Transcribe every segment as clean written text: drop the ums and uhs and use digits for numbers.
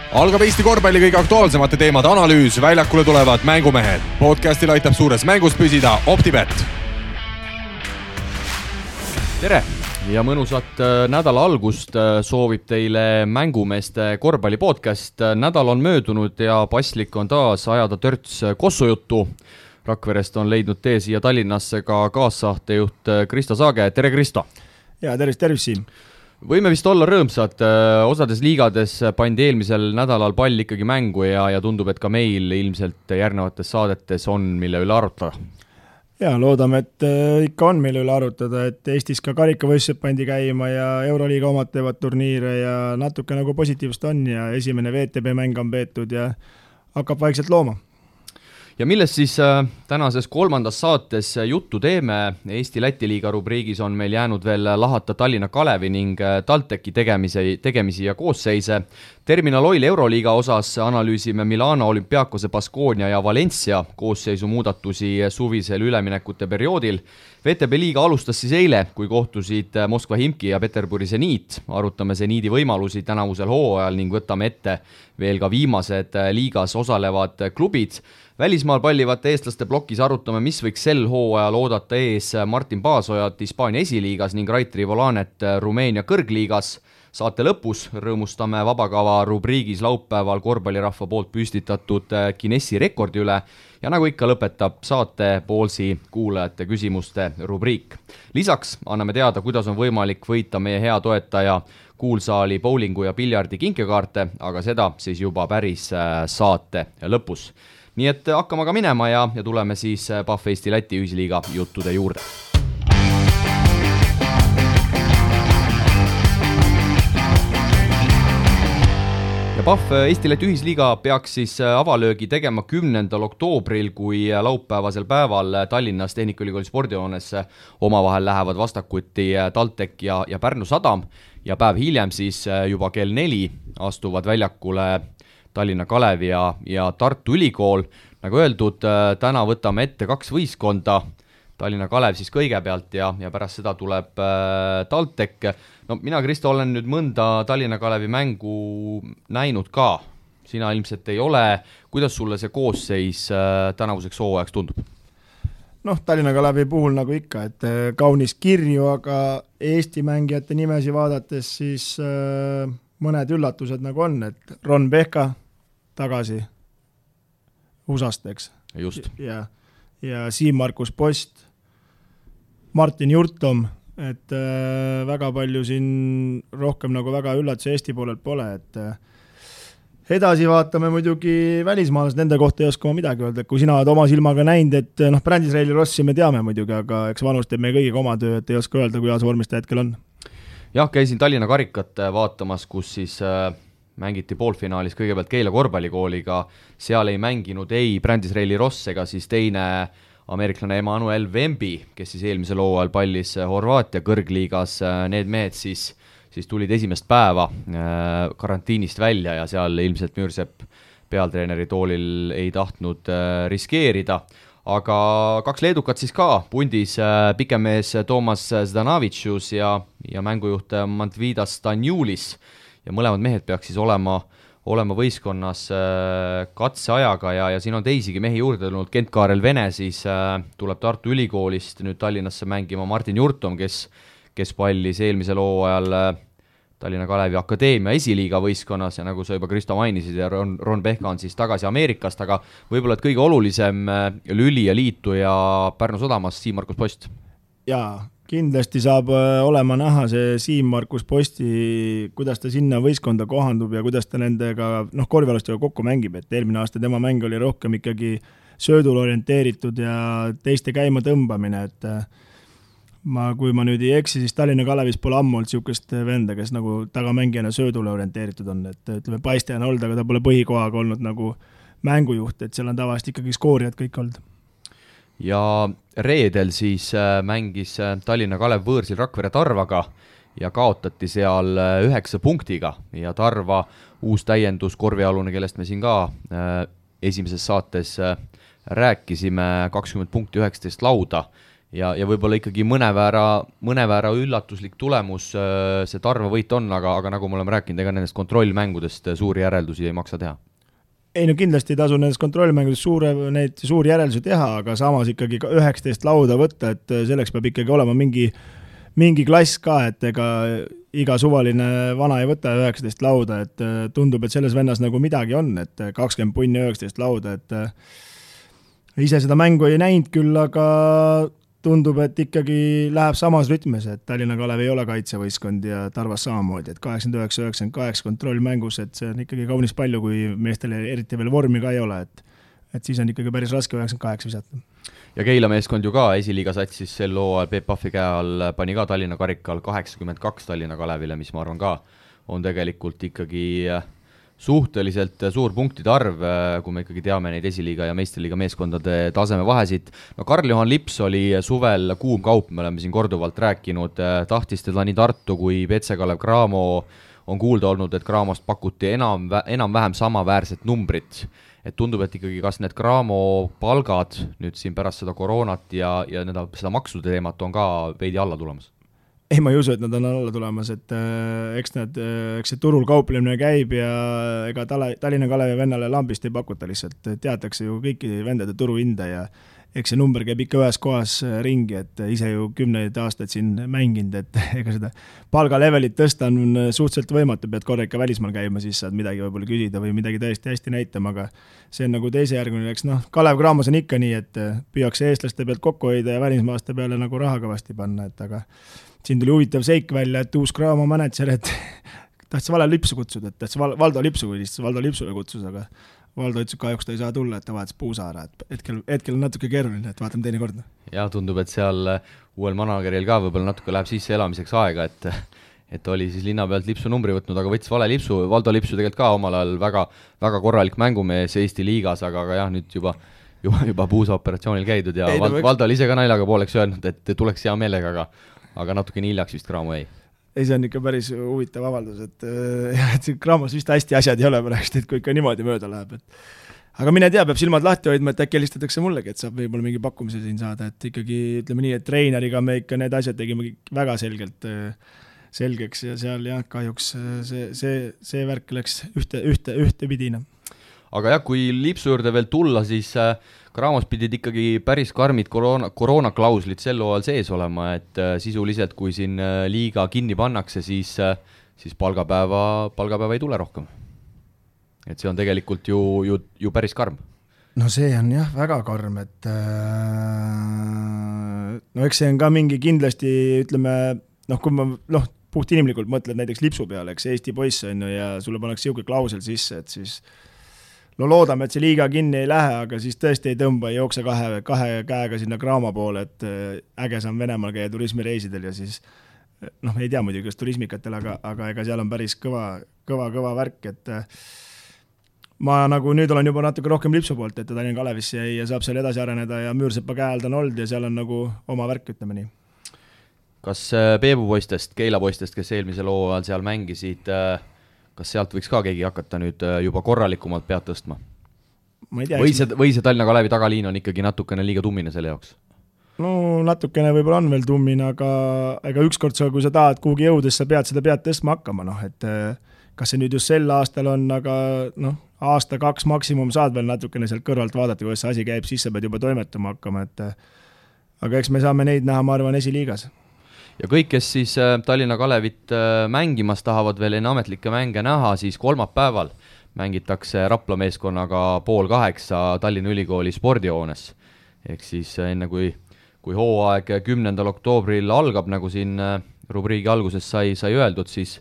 Algab Eesti korvpalli kõige aktuaalsemate teemade analüüs, väljakule tulevad mängumehed. Podcastil aitab suures mängus püsida OpTibet. Tere ja mõnusat nädala algust soovib teile mängumeeste korvpalli podcast. Nädal on möödunud ja paslik on taas ajada törts kossujuttu. Rakverest on leidnud tee siia Tallinnasse ka kaassaatejuht Kristo Saage. Tere Kristo! Ja tervis Siim! Võime vist olla rõõmsad, osades liigades pandi eelmisel nädalal pall ikkagi mängu ja tundub, et ka meil ilmselt järgnevates saadetes on, mille üle arutada. Ja loodame, et ikka on mille üle arutada, et Eestis ka karikavõistlused pandi käima ja Euroliiga omad teevad turniire ja natuke nagu positiivst on ja esimene VTB mäng on peetud ja hakkab vaikselt looma. Ja millest siis tänases kolmandas saates juttu teeme? Eesti-Läti liiga rubriigis on meil jäänud veel lahata Tallinna Kalevi ning TalTechi tegemisi ja koosseise. Terminal Oil Euroliiga osas analüüsime Milano, Olympiakose, Baskonia ja Valencia koosseisu muudatusi suvisel üleminekute perioodil. VTB liiga alustas siis eile, kui kohtusid Moskva Himki ja Peterburi Zeniit. Arutame Zeniidi võimalusi tänavusel hooajal ning võtame ette veel ka viimased liigas osalevad klubid. Välismaal pallivate eestlaste blokis arutame, mis võiks sel hooajal oodata ees Martin Paasojat Hispaania esiliigas ning Raitri Volanet Rumeenia kõrgliigas. Saate lõpus rõõmustame vabakava rubriigis laupäeval korvpallirahva poolt püstitatud Guinessi rekordi üle ja nagu ikka lõpetab saate poolsi kuulajate küsimuste rubriik. Lisaks anname teada, kuidas on võimalik võita meie hea toetaja kuulsaali bowlingu ja piljardi kinkekaarte, aga seda siis juba päris saate lõpus. Nii et hakkame ka minema ja tuleme siis PAF Eesti-Läti ühisliiga juttude juurde. Ja PAF Eesti-Läti ühisliiga peaks siis avalöögi tegema 10. oktoobril, kui laupäevasel päeval Tallinnas Tehnikaülikooli spordihoones omavahel lähevad vastakuti TalTech ja Pärnu Sadam ja päev hiljem siis juba kell 4 astuvad väljakule Tallinna Kalevi ja Tartu Ülikool. Nagu öeldud, täna võtame ette 2 võistkonda, Tallinna Kalev siis kõigepealt ja pärast seda tuleb TalTech. No mina, Kristo, olen nüüd mõnda Tallinna Kalevi mängu näinud ka. Sina ilmselt ei ole. Kuidas sulle see koosseis tänavuseks hooajaks tundub? Tallinna Kalevi puhul nagu ikka, et kaunis kirju, aga Eesti mängijate nimesi vaadates siis mõned üllatused nagu on, et Ron Pehka tagasi USA-st, eks. Just. Ja Siim-Markus Post, Martin Jurtom, et väga palju siin rohkem nagu väga üllatusi Eesti poolelt pole, et edasi vaatame muidugi välismaalased, nende kohta ei oska ma midagi öelda, et kui sina oled oma silmaga näinud, et Brandisraeli Rossi me teame muidugi, aga eks vanus teeb meie kõigiga oma töö, et ei oska öelda, kuidas vormis ta hetkel on. Jah, käisin Tallinna karikat vaatamas, kus siis mängiti poolfinaalis kõigepealt Keila korvpallikooliga, seal ei mänginud ei Brandisraeli Ross ega siis teine ameeriklane Emmanuel Wemby, kes siis eelmisel hooajal pallis Horvaatia kõrgliigas. Need mehed siis tulid esimest päeva karantiinist välja ja seal ilmselt Müürsepp pealtreeneri toolil ei tahtnud riskeerida. Aga 2 leedukat siis ka, pundis pikemees Toomas Zdanavicius ja mängujuht Mantvidas Stanjulis. Ja mõlemad mehed peaks siis olema võistkonnas katseajaga ja siin on teisigi mehi juurde tulnud. Kent-Kaarel Vene siis tuleb Tartu Ülikoolist nüüd Tallinnasse mängima Martin Jurtom, kes pallis eelmisel hooajal Tallinna Kalevi Akadeemia esiliiga võistkonnas ja nagu sa juba Kristo mainisid ja Ron Pehka on siis tagasi Ameerikast, aga võib-olla et kõige olulisem lüli ja liitu ja Pärnu Sadamas Siim-Markus Post. Jaa, kindlasti saab olema näha see Siim-Markus Posti, kuidas ta sinna võistkonda kohandub ja kuidas ta nendega korvpallistega kokku mängib, et eelmine aasta tema mäng oli rohkem ikkagi söödul orienteeritud ja teiste käima tõmbamine, et kui ma nüüd ei eksi, siis Tallinna Kalevis pole ammu olnud siukest venda, kes nagu tagamängijana söödule orienteeritud on, et ütleme paistajana olnud, aga ta pole põhikohaga olnud nagu mängujuht, et seal on tavaliselt ikkagi skoorijad kõik olnud. Ja reedel siis mängis Tallinna Kalev võõrsil Rakvere Tarvaga ja kaotati seal 9 punktiga ja Tarva uus täiendus korvialune, kellest me siin ka esimeses saates rääkisime, 20 punkti 19 lauda ja võib-olla ikkagi mõneväära üllatuslik tulemus see Tarva võit on, aga nagu me oleme rääkinud, ega nendest kontrollmängudest suuri järeldusi ei maksa teha. Ei no kindlasti ei tasu nendest kontrollmängudest suuri järeldusi teha, aga samas ikkagi 19 lauda võtta, et selleks peab ikkagi olema mingi klass ka, et ega iga suvaline vana ei võta 19 lauda, et tundub, et selles vennas nagu midagi on, et 20 punni 19 lauda, et ise seda mängu ei näinud küll, aga tundub, et ikkagi läheb samas rütmes, et Tallinna Kalev ei ole kaitsevõistkond ja Tarvas samamoodi, et 89-98 kontrollmängus, et see on ikkagi kaunis palju, kui meestel eriti veel vormi ka ei ole, et siis on ikkagi päris raske 98 visata. Ja Keila meeskond ju ka esiliiga satsis sel hooajal Peep Pahvi käe all pani ka Tallinna karikal 82 Tallinna Kalevile, mis ma arvan ka on tegelikult ikkagi suhteliselt suur punktide arv, kui me ikkagi teame neid esiliiga ja meistriliiga meeskondade taseme vahesid. No Karl-Juhan Lips oli suvel kuum kaup, me oleme siin korduvalt rääkinud, tahtis teda nii Tartu kui PC Kalev Cramo, on kuulda olnud, et Cramost pakuti enam-vähem samaväärset numbrit. Et tundub, et ikkagi kas need Cramo palgad nüüd siin pärast seda koroonat ja seda maksude teemat on ka veidi alla tulemas? Ei, ma ei usu, et nad on alla tulemas, et eks see turul kauplemine käib ja ega Tallinna Kalevi vennale lambist ei pakuta lihtsalt, teatakse ju kõiki vendade turuhinda ja eks see number käib ikka ühes kohas ringi, et ise ju 10 aastaid siin mänginud, et ega seda palgalevelit tõsta on suhteliselt võimatu, pead korra ikka välismaal käima, siis saad midagi võib-olla küsida või midagi tõesti hästi näitama, aga see on nagu teise järgmine, eks Kalev Cramos on ikka nii, et püüakse eestlaste pealt kokku hoida ja välismaaste peale nagu raha kõvasti panna, et aga siin tuli huvitav seik välja, et uus Cramo manager, et tahtis Vale Lipsu kutsuda, et tahtis Valdo Lipsu või lihtsalt Valdo Lipsule kutsus, aga Valdo ütles, kahjuks ta ei saa tulla, et ta vahetas Puusaara, et hetkel on natuke keeruline, et vaatame teine kord. Ja tundub, et seal uuel manageril ka võib-olla natuke läheb sisse elamiseks aega, et oli siis linna pealt Lipsu numbri võtnud, aga võttis Vale Lipsu, Valdo Lipsu tegelikult ka omal ajal väga korralik mängumees Eesti liigas, aga jah, nüüd juba Puusa operatsioonil käidud ja Valdo oli ise ka naljaga pooleks öelnud, et tuleks hea meelega, aga natuke nii hiljaks vist Cramo jäi. Ei, see on ikka päris huvitav avaldus, et Cramos vist hästi asjad ei ole pärast, et kui ikka niimoodi mööda läheb. Aga mine tea, peab silmad lahti hoidma, et äkki helistatakse mullegi, et saab võib-olla mingi pakkumise siin saada, et ikkagi ütleme nii, et treeneriga me ikka need asjad tegime väga selgeks ja seal jah, kahjuks see värk läks ühte pidina. Aga jah, kui Lipsu juurde veel tulla, siis Cramos pidid ikkagi päris karmid koroonaklauslid sel hooajal sees olema, et sisuliselt kui siin liiga kinni pannakse, siis palgapäeva ei tule rohkem. Et see on tegelikult ju päris karm. No see on jah väga karm, et eks see on ka mingi kindlasti, ütleme, kui ma puht inimlikult mõtled näiteks Lipsu peale, eks Eesti poiss on ju ja sulle pannakse siuke klausel sisse, et siis loodame, et see liiga kinni ei lähe, aga siis tõesti ei tõmba, ei jookse kahe käega sinna Cramo poole, et äge saan Venemaal käia turismireisidel ja siis ei tea muidugi, kas turismikatel, aga ega seal on päris kõva värk, et ma nagu nüüd olen juba natuke rohkem Lipsu poolt, et ta Tallinna Kalevisse jäi ja saab seal edasi areneda ja Müürsepa käe all ta on olnud ja seal on nagu oma värk, ütleme nii. Kas Peebu poistest, Keila poistest, kes eelmisel hooajal seal mängisid, kas sealt võiks ka keegi hakata nüüd juba korralikumalt pead tõstma? Või see Tallinna Kalevi tagaliin on ikkagi natukene liiga tummine selle jaoks? No natukene võib-olla on veel tummine, aga ükskord kui sa tahad kuhugi jõudes, sa pead seda pead tõstma hakkama, et kas see nüüd just sel aastal on, aga aasta 2 maksimum saad veel natukene sealt kõrvalt vaadata, kuidas see asi käib, siis sa pead juba toimetama hakkama, aga eks me saame neid näha, ma arvan, esiliigas. Ja kõik, kes siis Tallinna Kalevit mängimas tahavad veel enne ametlikke mänge näha, siis kolmapäeval mängitakse Rapla meeskonnaga 7:30 Tallinna Ülikooli spordihoones. Ehk siis enne kui hooaeg 10. oktoobril algab, nagu siin rubriigi alguses sai öeldud, siis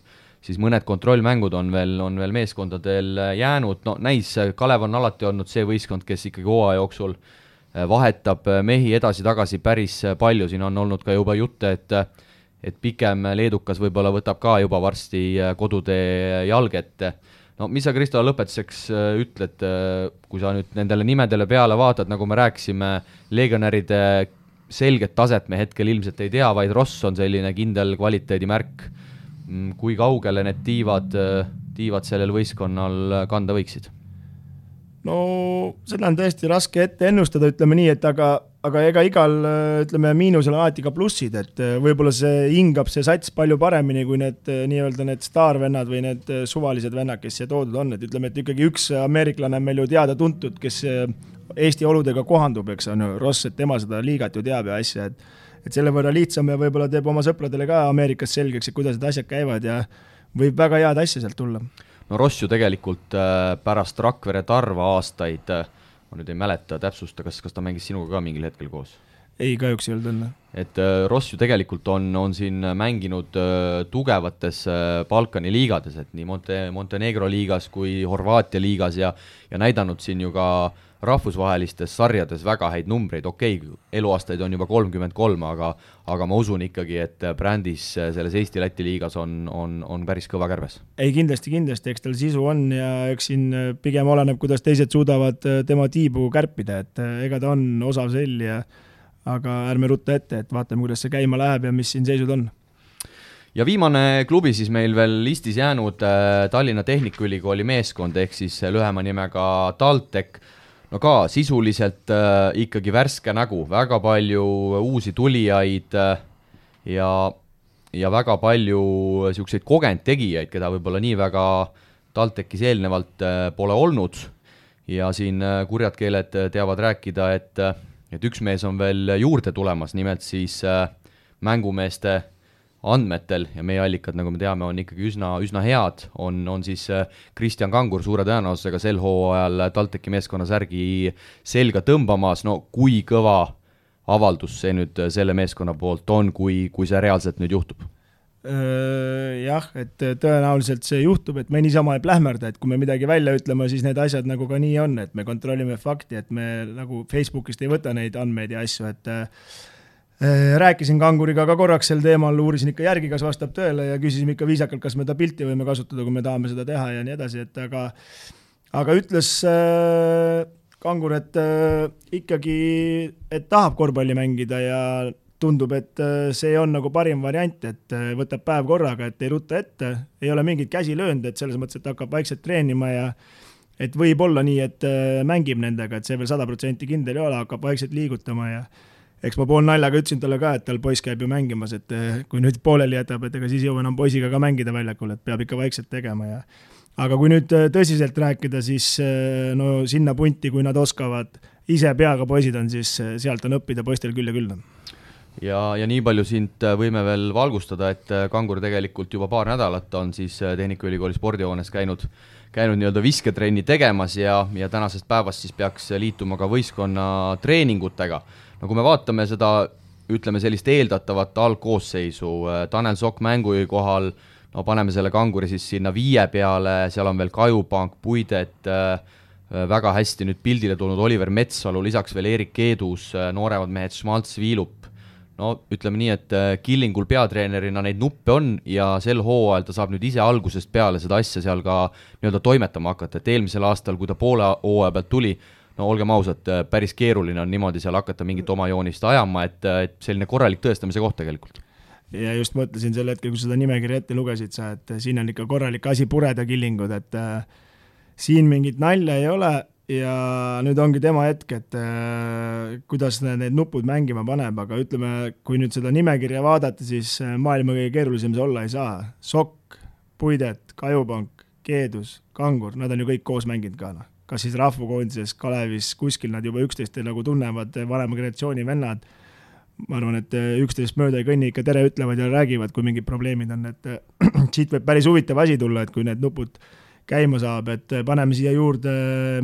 mõned kontrollmängud on veel meeskondadel jäänud. No näis, Kalev on alati olnud see võistkond, kes ikkagi hooaja jooksul vahetab mehi edasi-tagasi päris palju. Siin on olnud ka juba jutte, et pikem leedukas võib-olla võtab ka juba varsti kodutee jalget. No mis sa, Kristo, lõpetuseks ütled, kui sa nüüd nendele nimedele peale vaatad, nagu me rääkisime, legionäride selget taset me hetkel ilmselt ei tea, vaid Ross on selline kindel kvaliteedimärk. Kui kaugele need tiivad sellel võistkonnal kanda võiksid? No seda on tõesti raske ette ennustada, ütleme nii, et aga aga ega igal, ütleme, miinusel on alati ka plussid, et võib-olla see hingab see sats palju paremini kui need nii-öelda need staarvennad või need suvalised vennad, kes siia toodud on, et ütleme, et ikkagi üks ameeriklane on meil ju teada-tuntud, kes Eesti oludega kohandub, eks on ju, Ross, et tema seda liigat ju teab ja asja, et selle võrra lihtsam ja võib-olla teeb oma sõpradele ka Ameerikas selgeks, et kuidas need asjad käivad ja võib väga head asja sealt tulla. No Ross ju tegelikult pärast Rakvere Tarva aastaid, ma nüüd ei mäleta täpsusta, kas ta mängis sinuga ka mingil hetkel koos? Ei, kahjuks ei olnud õnne. Et Ross ju tegelikult on siin mänginud tugevates Balkani liigades, et nii Montenegro liigas kui Horvaatia liigas ja näidanud siin ju ka rahvusvahelistes sarjades väga häid numbreid, eluaastaid on juba 33, aga ma usun ikkagi, et brändis selles Eesti-Läti liigas on päris kõva kärbes. Ei, kindlasti, eks tal sisu on ja eks siin pigem oleneb, kuidas teised suudavad tema tiibu kärpida, et ega ta on osav sell aga ärme rutta ette, et vaatame, kuidas see käima läheb ja mis siin seisud on. Ja viimane klubi siis meil veel listis jäänud Tallinna Tehnikaülikooli meeskond, ehk siis lühema nimega TalTech. No ka sisuliselt ikkagi värske nägu, väga palju uusi tulijaid ja väga palju siukseid kogenud tegijaid, keda võib-olla nii väga TalTechis eelnevalt pole olnud ja siin kurjad keeled teavad rääkida, et üks mees on veel juurde tulemas, nimelt siis mängumeeste andmetel ja meie allikad, nagu me teame, on ikkagi üsna head, on siis Kristjan Kangur suure tõenäosusega sel hooajal TalTechi meeskonna särgi selga tõmbamas, no kui kõva avaldus see nüüd selle meeskonna poolt on, kui see reaalselt nüüd juhtub? Jah, et tõenäoliselt see juhtub, et me niisama ei plähmerda, et kui me midagi välja ütleme, siis need asjad nagu ka nii on, et me kontrollime fakti, et me nagu Facebookist ei võta neid andmeid ja asju, et rääkisin Kanguriga ka korraks sel teemal, uurisin ikka järgi, kas vastab tõele ja küsisime ikka viisakalt, kas me ta pilti võime kasutada, kui me tahame seda teha ja nii edasi, et aga ütles Kangur, et ikkagi, et tahab korvpalli mängida ja tundub, et see on nagu parim variant, et võtab päev korraga, et ei rutta ette, ei ole mingit käsi löönud, et selles mõttes, et hakkab vaikselt treenima ja et võib olla nii, et mängib nendega, et see veel 100% kindel ei ole, hakkab vaikselt liigutama ja eks ma pool naljaga ütlesin talle ka, et tal poiss käib ju mängimas, et kui nüüd pooleli jätab, et ega siis jõu enam poisiga ka mängida väljakul, et peab ikka vaikselt tegema ja aga kui nüüd tõsiselt rääkida, siis no sinna punti, kui nad oskavad, ise peaga poisid on, siis sealt on õppida poistel küll ja küll. Ja nii palju sind võime veel valgustada, et Kangur tegelikult juba paar nädalat on siis Tehnikaülikooli spordihoones käinud nii-öelda visketrenni tegemas ja tänasest päevast siis peaks liituma ka võistkonna treeningutega. No kui me vaatame seda, ütleme sellist eeldatavat algkoosseisu, Tanel Sokk mängujuhi kohal, no paneme selle Kanguri siis sinna 5 peale, seal on veel Kajupank, Puidet, väga hästi nüüd pildile tulnud Oliver Metsalu, lisaks veel Erik Keedus, nooremad mehed Schmaltz, Viilup. No ütleme nii, et Killingul peatreenerina neid nuppe on ja sel hooajal ta saab nüüd ise algusest peale seda asja seal ka nii-öelda toimetama hakata, et eelmisel aastal, kui ta poole hooaja pealt tuli, no olgem ausad, päris keeruline on niimoodi seal hakata mingit oma joonist ajama, et selline korralik tõestamise koht tegelikult. Ja just mõtlesin sel hetkel, kui seda nimekirja ette lugesid sa, et siin on ikka korralik asi pureda Killingud, et siin mingit nalja ei ole ja nüüd ongi tema hetk, et kuidas need nupud mängima paneb, aga ütleme, kui nüüd seda nimekirja vaadata, siis maailma kõige keerulisem see olla ei saa. Sokk, Puidet, Kajupank, Keedus, Kangur, nad on ju kõik koos mänginud ka. Kas siis rahvukoondises, Kalevis, kuskil nad juba 11 nagu tunnevad vanema generatsiooni vennad. Ma arvan, et 11 mööda ei kõnni ikka tere ütlevad ja räägivad, kui mingid probleemid on, et siit võib päris huvitav asi tulla, et kui need nupud käima saab, et paneme siia juurde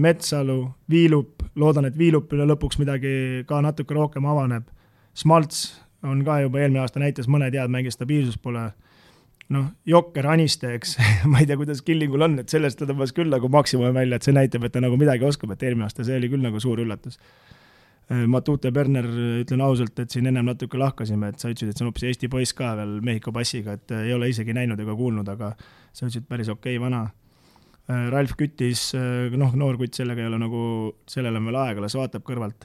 Metsalu, Viilup, loodan, et Viilupile lõpuks midagi ka natuke rohkem avaneb. Schmaltz on ka juba eelmine aasta näitas, mõned head mängis, stabiilsus pole. Jokker, Aniste, eks, ma ei tea, kuidas Killingul on, et sellest ta tõmbas küll nagu maksimumi välja, et see näitab, et ta nagu midagi oskab, et eelmine aasta see oli küll nagu suur üllatus. Matute Berner, ütlen ausalt, et siin ennem natuke lahkasime, et sa ütlesid, et see on hoopis Eesti poiss ka veel Mehhiko passiga, et ei ole isegi näinud ega kuulnud, aga sa ütlesid päris okei vana. Ralf Küttis, noor kutt sellega ei ole nagu, sellele on veel aega, las vaatab kõrvalt.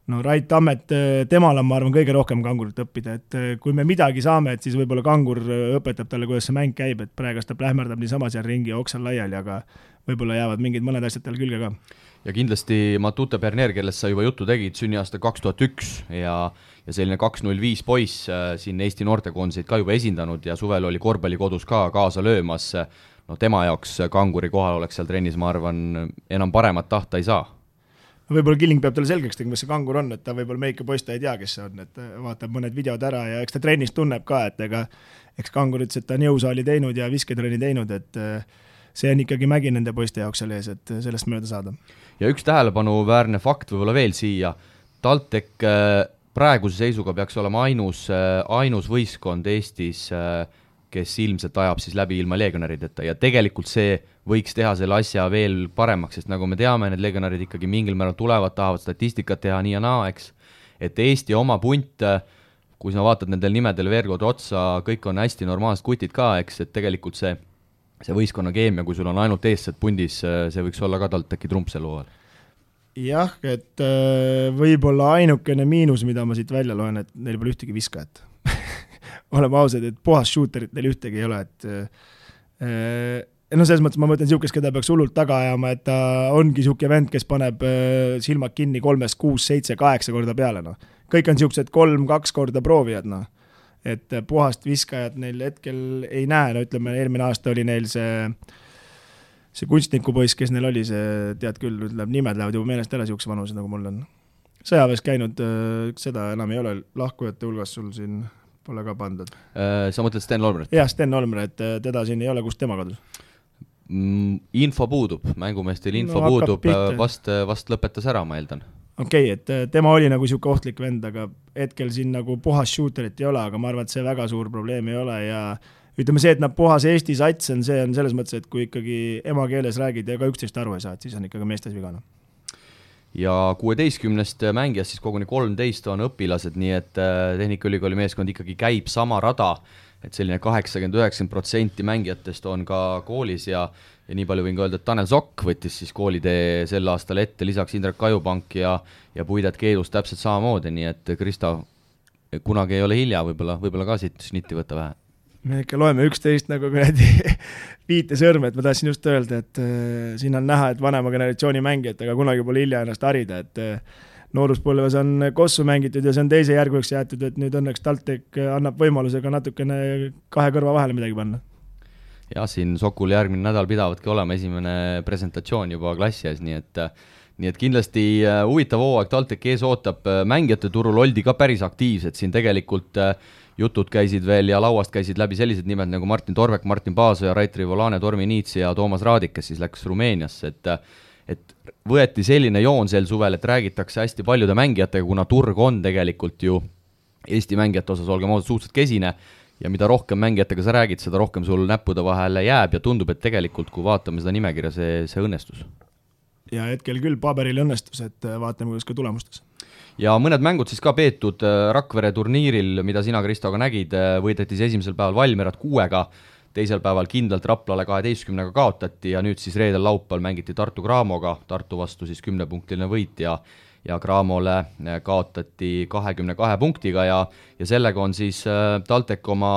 no Rait Tammet, temal on, ma arvan, kõige rohkem Kangurit õppida, et kui me midagi saame, et siis võib-olla Kangur õpetab talle, kuidas see mäng käib, et praegu ta plähmerdab niisama seal ringi ja oksal laiali, aga võib-olla jäävad mingid mõned asjad tal külge ka. Ja kindlasti Matute Bernier, kellest sa juba juttu tegid, sünniaasta 2001 ja selline 205 poiss siin Eesti noortekoondiseid ka juba esindanud ja suvel oli korvpallikodus ka kaasa löömas. No tema jaoks Kanguri kohal oleks seal trennis, ma arvan, enam paremat tahta ei saa. Võib-olla Killing peab talle selgeks tegema, mis see Kangur on, et ta võib-olla meike poiss ta ei tea, kes see on, et vaatab mõned videod ära ja eks ta trennis tunneb ka, et eks Kangur ütles, et ta on jõusaali teinud ja visketrenni teinud, et see on ikkagi mägi nende poiste jaoks seal ees, et sellest mööda saada. Ja üks tähelepanuväärne fakt võib-olla veel siia, TalTech praeguse seisuga peaks olema ainus võistkond Eestis, kes ilmselt ajab siis läbi ilma legionarideta ja tegelikult see võiks teha selle asja veel paremaks, sest nagu me teame, need legionarid ikkagi mingil määral tulevad, tahavad statistikat teha nii ja naa, eks. Et Eesti oma punt, kui sa vaatad nendel nimedel veergod otsa, kõik on hästi normaalsed kutid ka, eks, et tegelikult see võistkonna keemia, kui sul on ainult eestsed pundis, see võiks olla ka TalTechi trump sel hooajal. Jah, et võib-olla ainukene miinus, mida ma siit välja loen, et neil pole ühtegi viskajat. Oleme ausad, et puhas shooterit neil ühtegi ei ole, et selles mõttes ma mõtlen siukest, keda peaks hullult taga ajama, et ta ongi siuke vend, kes paneb silmad kinni 3, 6, 7, 8 korda peale, no. Kõik on siuksed 3-2 korda proovijad, no. Et puhast viskajat neil hetkel ei näe, no ütleme, eelmine aasta oli neil see kunstnikupoiss, kes neil oli, see tead küll, nimed lähevad juba meelest ära siukse vanuse, nagu mul on. Sõjaväes käinud, seda enam ei ole lahkujate hulgas sul siin pole ka pandud. Sa mõtled Sten Olmeret? Jah, Sten Olmeret, teda siin ei ole, kust tema kadus? Info puudub, mängumeestel info puudub, vast lõpetas ära, ma eeldan. Okei, et tema oli nagu siuke ohtlik vend, aga hetkel siin nagu puhas shooterit ei ole, aga ma arvan, et see väga suur probleem ei ole ja ütleme see, et nad puhas Eesti sats on, see on selles mõttes, et kui ikkagi emakeeles räägid ja ka üksteist aru ei saa, et siis on ikkagi meestes vigana. Ja 16 mängijast siis koguni 13 on õpilased, nii et Tehnikaülikooli meeskond ikkagi käib sama rada, et selline 80-90% mängijatest on ka koolis ja nii palju võin ka öelda, et Tanel Sokk võttis siis koolitee sel aastal ette, lisaks Indrek Kajupank ja Puidet Keedus täpselt samamoodi, nii et Kristo, kunagi ei ole hilja, võib-olla ka siit snitti võtta vähe. Me ikka loeme 11 nagu viite sõrme, et ma tahtsin just öelda, et siin on näha, et vanema generatsiooni mängijad, aga kunagi pole hilja ennast harida, et nooruspõlves on kossu mängitud ja see on teise järguks jäetud, et nüüd õnneks TalTech annab võimalusega natukene kahe kõrva vahele midagi panna. Ja siin Sokul järgmine nädal pidavadki olema esimene presentatsioon juba klassi ees, nii et kindlasti huvitav hooaeg TalTech ees ootab, mängijate turul oldi ka päris aktiivsed, siin tegelikult jutud käisid veel ja lauast käisid läbi sellised nimed nagu Martin Torvek, Martin Paasoja, Rait Rivolane, Tormi Niits ja Toomas Raadik, kes siis läks Rumeeniasse, et võeti selline joon sel suvel, et räägitakse hästi paljude mängijatega, kuna turg on tegelikult ju Eesti mängijate osas, olgem ausad, suhteliselt kesine ja mida rohkem mängijatega sa räägid, seda rohkem sul näppude vahele jääb ja tundub, et tegelikult kui vaatame seda nimekirja, see õnnestus. Ja hetkel küll paberil õnnestus, et vaatame, kuidas ka tulemustes. Ja mõned mängud siis ka peetud Rakvere turniiril, mida sina, Kristo, ka nägid, võidetis esimesel päeval Valmierat 6-ga, teisel päeval kindlalt Raplale 12-ga kaotati ja nüüd siis reedel laupäeval mängiti Tartu Graamoga, Tartu vastu siis 10-punktiline võit ja Graamole kaotati 22 punktiga ja sellega on siis TalTech oma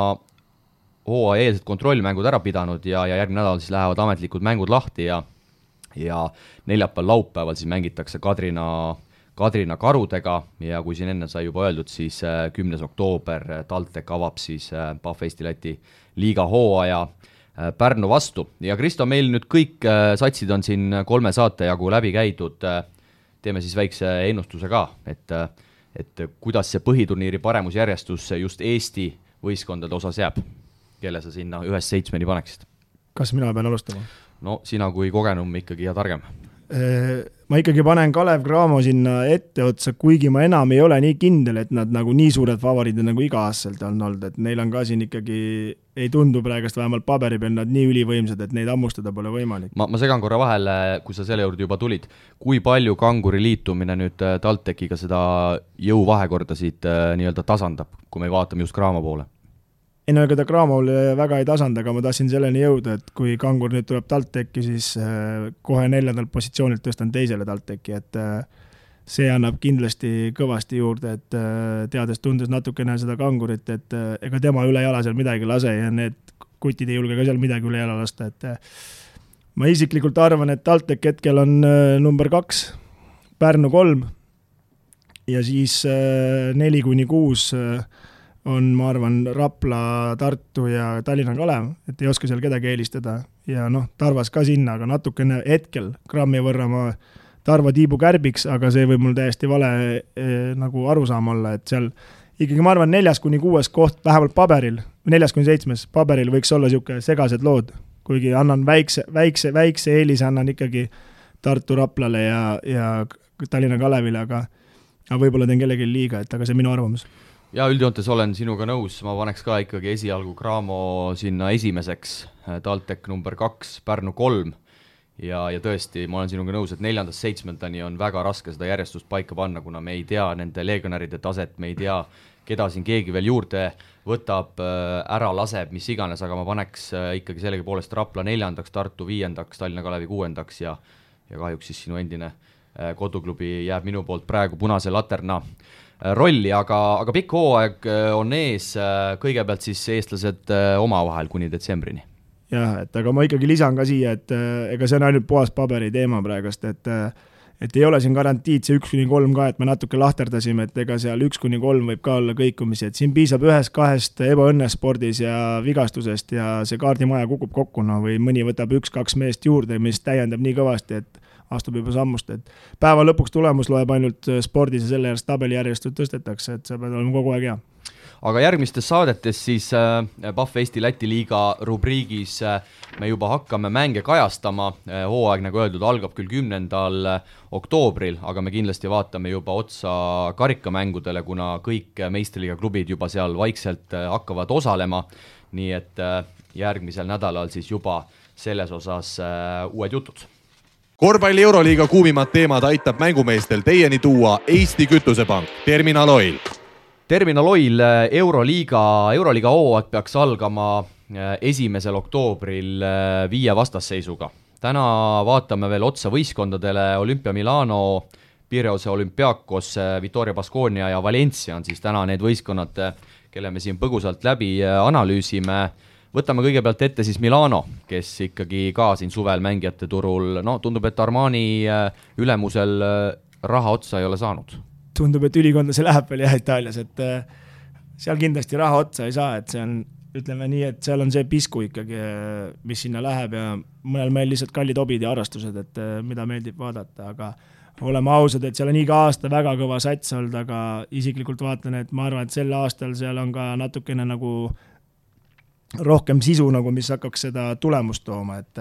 hooaja eelset kontrollmängud ära pidanud ja järgmine nädal siis lähevad ametlikud mängud lahti ja neljapäeval laupäeval siis mängitakse Kadrina Karudega ja kui siin enne sai juba öeldud, siis 10. oktoober TalTech avab siis Pahv Eesti Läti liiga hooaja Pärnu vastu. Ja Kristo, meil nüüd kõik satsid on siin 3 saate jagu läbi käidud, teeme siis väikse ennustuse ka, et kuidas see põhiturniiri paremusjärjestus just Eesti võistkondade osas jääb, kelle sa sinna 1-7 paneksid? Kas mina pean alustama? No sina kui kogenum ikkagi ja targem. Ma ikkagi panen Kalev Cramo sinna ette otsa, kuigi ma enam ei ole nii kindel, et nad nagu nii suured favoriidid nagu iga-aastaselt on olnud, et neil on ka siin ikkagi, ei tundu praegust vähemalt paberi peal nad nii ülivõimsad, et neid ammustada pole võimalik. Ma segan korra vahele, kui sa selle juurde juba tulid, kui palju Kanguri liitumine nüüd TalTechiga seda jõuvahekorda siit nii-öelda tasandab, kui me vaatame just Cramo poole? Ei no ega ta Cramol väga ei tasanda, aga ma tahtsin selleni jõuda, et kui Kangur nüüd tuleb TalTechi, siis kohe 4. positsioonilt tõstan teisele TalTechi, et see annab kindlasti kõvasti juurde, et tundes natukene seda kangurit, et ega tema üle jala seal midagi lase ja need kutid ei julge ka seal midagi üle jala lasta, et ma isiklikult arvan, et TalTech hetkel on number 2, Pärnu 3 ja siis 4-6 on, ma arvan, Rapla, Tartu ja Tallinna Kalev, et ei oska seal kedagi eelistada ja Tarvas ka sinna, aga natukene hetkel grammi võrra ma Tarva tiibu kärbiks, aga see võib mul täiesti vale nagu arusaam olla, et seal ikkagi ma arvan 4-6 koht vähemalt paberil, 4-7 paberil võiks olla siuke segased lood, kuigi annan väikse eelise annan ikkagi Tartu Raplale ja Tallinna Kalevile, aga võib-olla teen kellegi liiga, et aga see minu arvamus. Ja üldjoontes olen sinuga nõus, ma paneks ka ikkagi esialgu Graamo sinna esimeseks, TalTech number 2, Pärnu 3 ja tõesti, ma olen sinuga nõus, et 4.-7. on väga raske seda järjestust paika panna, kuna me ei tea nende legionäride taset, me ei tea, keda siin keegi veel juurde võtab, ära laseb, mis iganes, aga ma paneks ikkagi sellegi poolest Rapla 4., Tartu 5., Tallinna Kalevi 6. ja kahjuks siis sinu endine koduklubi jääb minu poolt praegu punase laterna rolli, aga pikk hooaeg on ees, kõigepealt siis eestlased omavahel kuni detsembrini. Jah, et aga ma ikkagi lisan ka siia, et ega see on ainult puhas paberi teema praegust, et ei ole siin garantiid see 1-3 ka, et me natuke lahterdasime, et ega seal 1-3 võib ka olla kõikumisi, et siin piisab 1-2 ebaõnnes spordis ja vigastusest ja see kaardimaja kukub kokku, või mõni võtab 1-2 meest juurde, mis täiendab nii kõvasti, et astub juba sammust, et päeva lõpuks tulemus loeb ainult spordis ja selle järjest tabelijärjestust tõstetakse, et see peab olema kogu aeg hea. Aga järgmistes saadetes siis Pahv Eesti Läti liiga rubriigis me juba hakkame mänge kajastama, hooaeg nagu öeldud algab küll 10. oktoobril, aga me kindlasti vaatame juba otsa karikamängudele, kuna kõik meistriliiga klubid juba seal vaikselt hakkavad osalema, nii et järgmisel nädalal siis juba selles osas uued jutud. Korvpalli Euroliiga kuumimad teemad aitab mängumeestel teieni tuua Eesti Kütusepank, Terminal Oil. Terminal Oil Euroliiga hooaeg peaks algama 1. oktoobril 5 vastasseisuga. Täna vaatame veel otsa võistkondadele Olympia Milano, Pireuse Olympiakos, Vitoria Baskonia ja Valencia on siis täna need võistkonnad, kelle me siin põgusalt läbi analüüsime. Võtame kõigepealt ette siis Milano, kes ikkagi ka siin suvel mängijate turul, tundub, et Armani ülemusel raha otsa ei ole saanud. Tundub, et ülikonda see läheb veel Itaalias, et seal kindlasti raha otsa ei saa, et see on, ütleme nii, et seal on see pisku ikkagi, mis sinna läheb ja mõnel meil lihtsalt kallid hobid ja harrastused, et mida meeldib vaadata, aga oleme ausad, et seal on iga aasta väga kõva sats olnud, aga isiklikult vaatan, et ma arvan, et sel aastal seal on ka natukene nagu rohkem sisu, nagu mis hakkaks seda tulemust tooma, et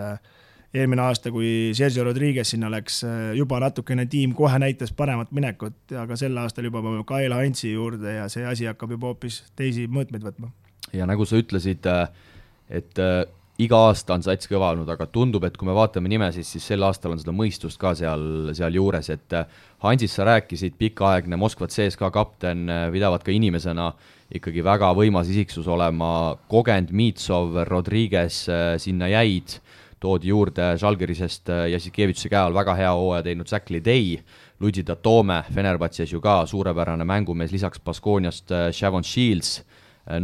eelmine aasta, kui Sergio Rodriguez sinna läks, juba natukene tiim kohe näitas paremat minekut, aga sel aastal juba Kael Hantsi juurde ja see asi hakkab juba hoopis teisi mõõtmeid võtma. Ja nagu sa ütlesid, et iga aasta on sats kõva olnud, aga tundub, et kui me vaatame nimesid, siis sel aastal on seda mõistust ka seal juures, et Hansist sa rääkisid, pikaaegne Moskva CSKA kapten, pidavad ka inimesena ikkagi väga võimas isiksus olema, kogend Mitsov, Rodriguez sinna jäid, toodi juurde Žalgirisest Jassikevitši käe all väga hea hooaja teinud Säkli Dei, Luigi Datome, Fenerbahces ju ka suurepärane mängumees, lisaks Baskoniast Shavon Shields,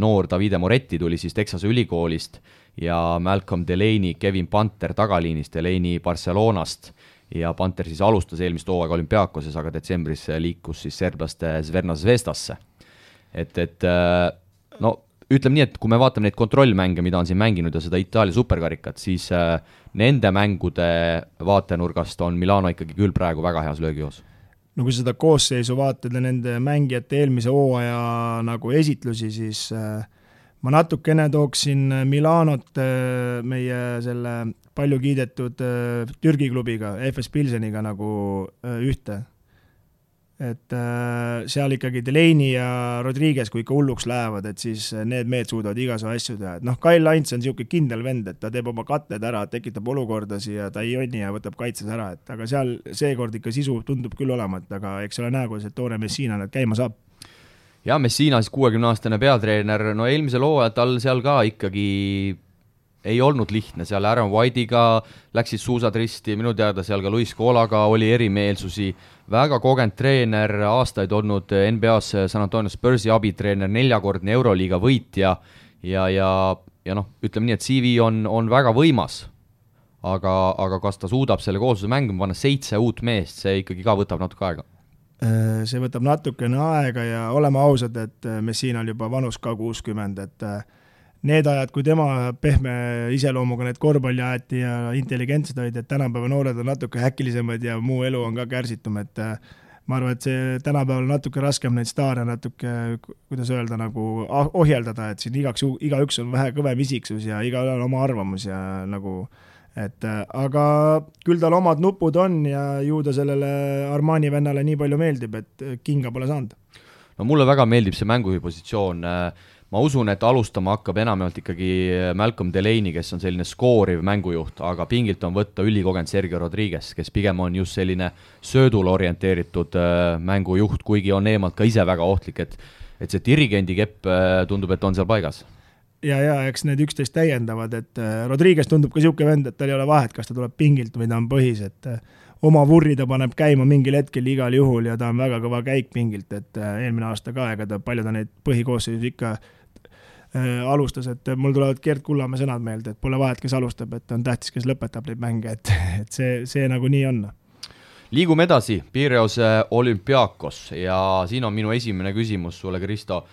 noor Davide Moretti tuli siis Texase ülikoolist ja Malcolm Delaney, Kevin Panter tagaliinist, Delaney Barcelonast ja Panter siis alustas eelmist hooaega Olümpiakoses, aga detsembris liikus siis serblaste Zvezda Zvezdasse. Ütleme nii, et kui me vaatame neid kontrollmänge, mida on siin mänginud ja seda Itaalia superkarikat, siis nende mängude vaatenurgast on Milano ikkagi küll praegu väga heas löögijoos. No kui seda koosseisu vaatad ja nende mängijate eelmise hooaja nagu esitlusi, siis ma natukene tooksin Milanot meie selle palju kiidetud Türgi klubiga, FS Pilseniga nagu ühte. Et seal ikkagi Delaney ja Rodriguez, kui ikka hulluks lähevad, et siis need mehed suudavad igasu asju teha. Et Kail Hants on siuke kindel vend, et ta teeb oma katted ära, tekitab olukordasi ja ta ei jonni ja võtab kaitses ära. Et aga seal seekord ikka sisu tundub küll olema, et aga eks ole näe, kui see toone Messina nüüd käima saab. Ja Messina siis 60-aastane peatreener, eelmisel hooajal tal seal ka ikkagi ei olnud lihtne, seal Aaron White'iga läksid suusad risti, minu teada seal ka Luis Colaga oli erimeelsusi, väga kogenud treener, aastaid olnud NBA-s San Antonio Spursi abitreener, 4-kordne Euroliiga võitja ja noh, ütleme nii, et CV on väga võimas, aga kas ta suudab selle koosluse mängima panna 7 uut meest, see ikkagi ka võtab natuke aega? See võtab natukene aega ja oleme ausad, et Messinal juba vanus ka 60, et need ajad, kui tema pehme iseloomuga need korvpalli aeti ja intelligentsed olid, et tänapäeva noored on natuke häkilisemad ja muu elu on ka kärsitum, et ma arvan, et see tänapäeval on natuke raskem neid staare natuke, kuidas öelda, nagu ohjeldada, et siin igaüks on vähe kõvem isiksus ja igaühel on oma arvamus ja nagu aga küll tal omad nupud on ja ju ta sellele Armani vennale nii palju meeldib, et kinga pole saanud. No mulle väga meeldib see mängupositsioon. Ma usun, et alustama hakkab enamalt ikkagi Malcolm Delaney, kes on selline skooriv mängujuht, aga pingilt on võtta ülikogenud Sergio Rodriguez, kes pigem on just selline söödule orienteeritud mängujuht, kuigi on eemalt ka ise väga ohtlik, et see dirigendi kepp tundub, et on seal paigas. Ja eks need üksteist täiendavad, et Rodriguez tundub ka siuke vend, et tal ei ole vahet, kas ta tuleb pingilt või ta on põhis, et oma vurri ta paneb käima mingil hetkel igal juhul ja ta on väga kõva käik pingilt, et eelmine aasta ka, ega palju ta neid põhikoosseisus ikka alustas, et mul tulevad Gert Kullamäe sõnad meelde, et pole vahet, kes alustab, et on tähtis, kes lõpetab neid mänge, et see nagu nii on. Liigume edasi, Pireuse Olympiakos ja siin on minu esimene küsimus sulle, Kristo.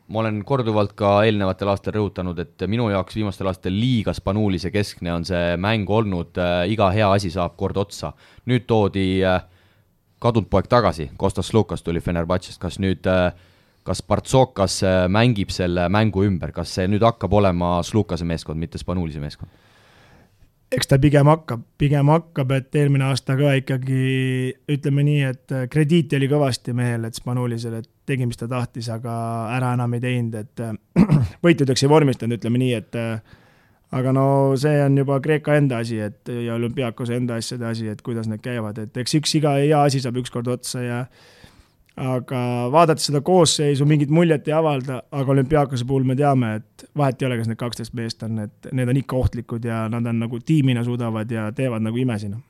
Ma olen korduvalt ka eelnevatel aastal rõhutanud, et minu jaoks viimastel aastatel liiga Spanuulise keskne on see mäng olnud, iga hea asi saab kord otsa. Nüüd toodi kadunud poeg tagasi, Kostas Slukas tuli Fenerbahčest, kas Partsokas mängib selle mängu ümber, kas see nüüd hakkab olema Slukase meeskond, mitte Spanuulise meeskond? Eks ta pigem hakkab, et eelmine aasta ka ikkagi ütleme nii, et krediiti oli kõvasti mehel, et Spanuulisel, et tegi, mis ta tahtis, aga ära enam ei teinud, et võitudeks ei vormistanud, ütleme nii, et aga no see on juba Kreeka enda asi, et ja Olümpiakose enda asjade asi, et kuidas need käivad, et eks iga hea asi saab ükskord otsa ja aga vaadates seda koosseisu mingit muljet ei avalda, aga Olümpiakose puhul me teame, et vahet ei ole, kas need 12 meest on, et need on ikka ohtlikud ja nad on nagu tiimina suudavad ja teevad nagu imesina.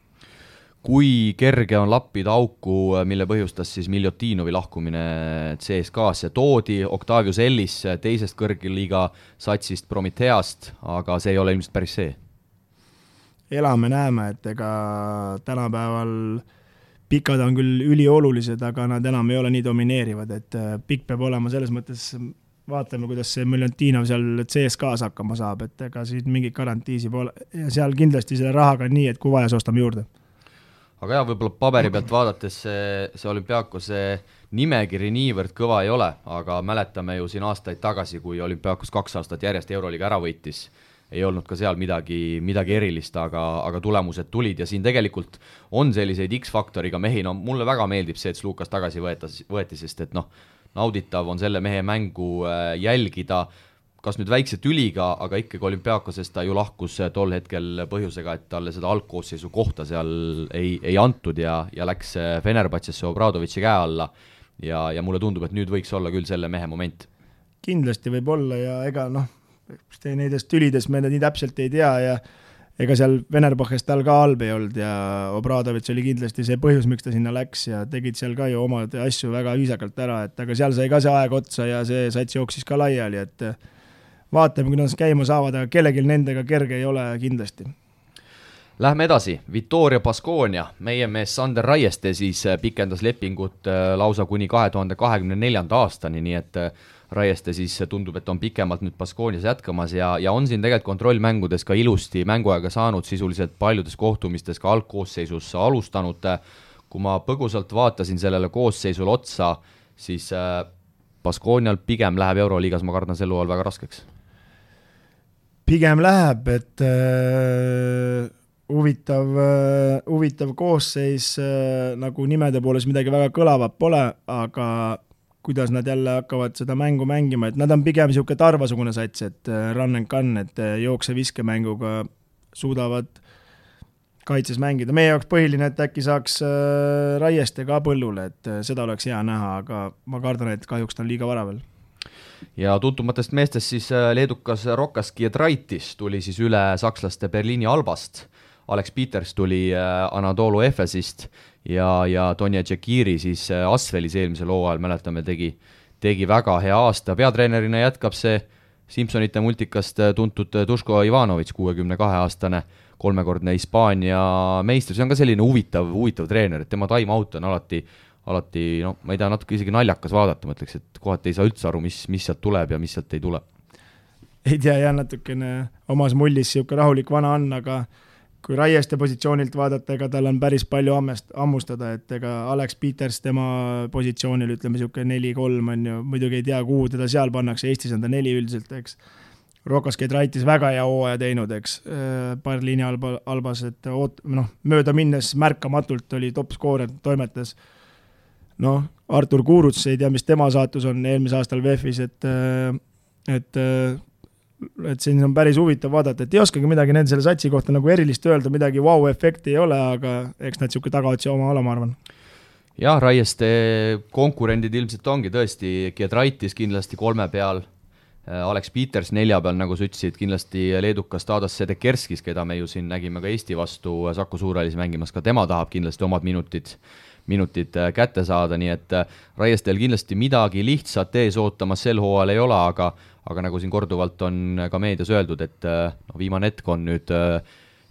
Kui kerge on lappida auku, mille põhjustas siis Miljotinovi lahkumine CSKA-sse, toodi Octavius Ellis teisest kõrgliiga satsist Prometheast, aga see ei ole ilmselt päris see. Elame näeme, et ega tänapäeval pikad on küll üliolulised, aga nad enam ei ole nii domineerivad, et pikk peab olema selles mõttes, vaatame, kuidas see Miljontinov seal CSKA-s hakkama saab, et ega siin mingit garantiisi pole ja seal kindlasti selle rahaga nii, et kui vaja, ostame juurde. Aga jah, võib-olla paberi pealt vaadates see Olümpiakose nimekiri niivõrd kõva ei ole, aga mäletame ju siin aastaid tagasi, kui Olümpiakos 2 aastat järjest Euroliiga ära võitis, ei olnud ka seal midagi erilist, aga tulemused tulid ja siin tegelikult on selliseid X-faktoriga mehi, no mulle väga meeldib see, et Slukas tagasi võeti, sest et nauditav on selle mehe mängu jälgida, kas nüüd väikse tüliga, aga ikkagi Olümpiakosest ta ju lahkus tol hetkel põhjusega, et talle seda algkoosseisu kohta seal ei antud ja läks Fenerbahčesse Obradovitši käe alla ja mulle tundub, et nüüd võiks olla küll selle mehe moment. Kindlasti võib olla ja ega neidest tülides me nii täpselt ei tea ja ega seal Fenerbahčest tal ka halb ei olnud ja Obradovitš oli kindlasti see põhjus, miks ta sinna läks ja tegid seal ka ju omad asju väga viisakalt ära, et aga seal sai ka see aeg otsa ja see sats jooksis ka laiali, et vaatame, kuidas käima saavad, aga kellegil nendega kerge ei ole kindlasti. Lähme edasi, Vittoria Baskonia, meie mees Sander Raieste siis pikendas lepingut lausa kuni 2024. aastani, nii et Raieste siis tundub, et on pikemalt nüüd Baskonias jätkamas ja on siin tegelikult kontrollmängudes ka ilusti mänguaega saanud, sisuliselt paljudes kohtumistes ka algkoosseisus alustanud. Kui ma põgusalt vaatasin sellele koosseisule otsa, siis Baskonial pigem läheb Euroliigas, ma kardan selle all väga raskeks. Pigem läheb, et huvitav koosseis nagu nimede pooles midagi väga kõlavat pole, aga kuidas nad jälle hakkavad seda mängu mängima, et nad on pigem siuke tarvasugune sats, et run and gun, et jookse-viskemänguga suudavad kaitses mängida. Meie jaoks põhiline, et äkki saaks Raieste ka põllule, et seda oleks hea näha, aga ma kardan, et kahjuks ta on liiga vara veel. ja tuntumatest meestest siis leedukas Rokas Giedraitis tuli siis üle sakslaste Berliini Albast, Alex Peters tuli Anadolu Efesist ja Tonje Tšekiri siis Asvelis eelmisel hooajal, mäletame, tegi väga hea aasta, peatreenerina jätkab see Simpsonite multikast tuntud Duško Ivanović, 62-aastane, 3-kordne Hispaania meister, see on ka selline huvitav treener, et tema time-out on alati, no ma ei tea, natuke isegi naljakas vaadata, ma ütleks, et kohati ei saa üldse aru, mis sealt tuleb ja mis sealt ei tule. Ei tea, jah, natukene omas mullis siuke rahulik vana on, aga kui Raieste positsioonilt vaadata, ega tal on päris palju ammustada, et ega Alex Peters tema positsioonil, ütleme siuke 4-3 on ju, muidugi ei tea, kuhu teda seal pannakse, Eestis on ta 4 üldiselt, eks. Rokas Giedraitis väga hea hooaja teinud, eks, Berliini Albas, et mööda minnes märkamatult oli top-skoorer, toimetas. Artur Kuruts, ei tea, mis tema saatus on eelmise aastal VEF-is, et siin on päris huvitav vaadata, et ei oskagi midagi nende selle satsi kohta nagu erilist öelda, midagi wow-efekti ei ole, aga eks nad siuke tagaotsi oma ole, ma arvan. Jah, Raieste konkurendid ilmselt ongi tõesti Giedraitis kindlasti 3 peal, Alex Peters 4 peal, nagu sa ütlesid, kindlasti leedukas Tadas Sedekerskis, keda me ju siin nägime ka Eesti vastu Saku Suurhallis mängimas, ka tema tahab kindlasti omad minutid kätte saada, nii et Raiestel kindlasti midagi lihtsat ees ootamas sel hooajal ei ole, aga nagu siin korduvalt on ka meedias öeldud, et viimane hetk on nüüd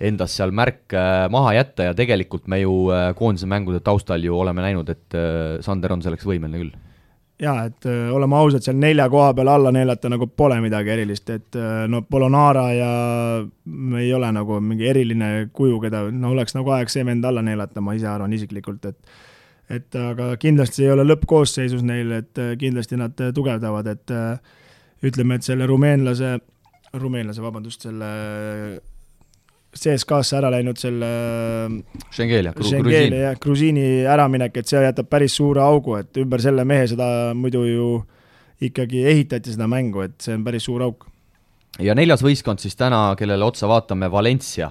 endas seal märk maha jätta ja tegelikult me ju koondise mängude taustal ju oleme näinud, et Sander on selleks võimeline küll. Jaa, et oleme ausad, seal 4 koha peal alla neelata nagu pole midagi erilist, et Polonara ja ei ole nagu mingi eriline kuju, keda oleks nagu aeg see vend alla neelata, ma ise arvan isiklikult, et aga kindlasti ei ole lõppkoosseisus neil, et kindlasti nad tugevdavad, et ütleme, et selle rumeenlase, selle CSKA-sse ära läinud selle Šengeli ja Grusiini äraminek, et see jätab päris suure augu, et ümber selle mehe seda muidu ju ikkagi ehitati seda mängu, et see on päris suur auk. Ja 4. võistkond siis täna, kellele otsa vaatame, Valencia.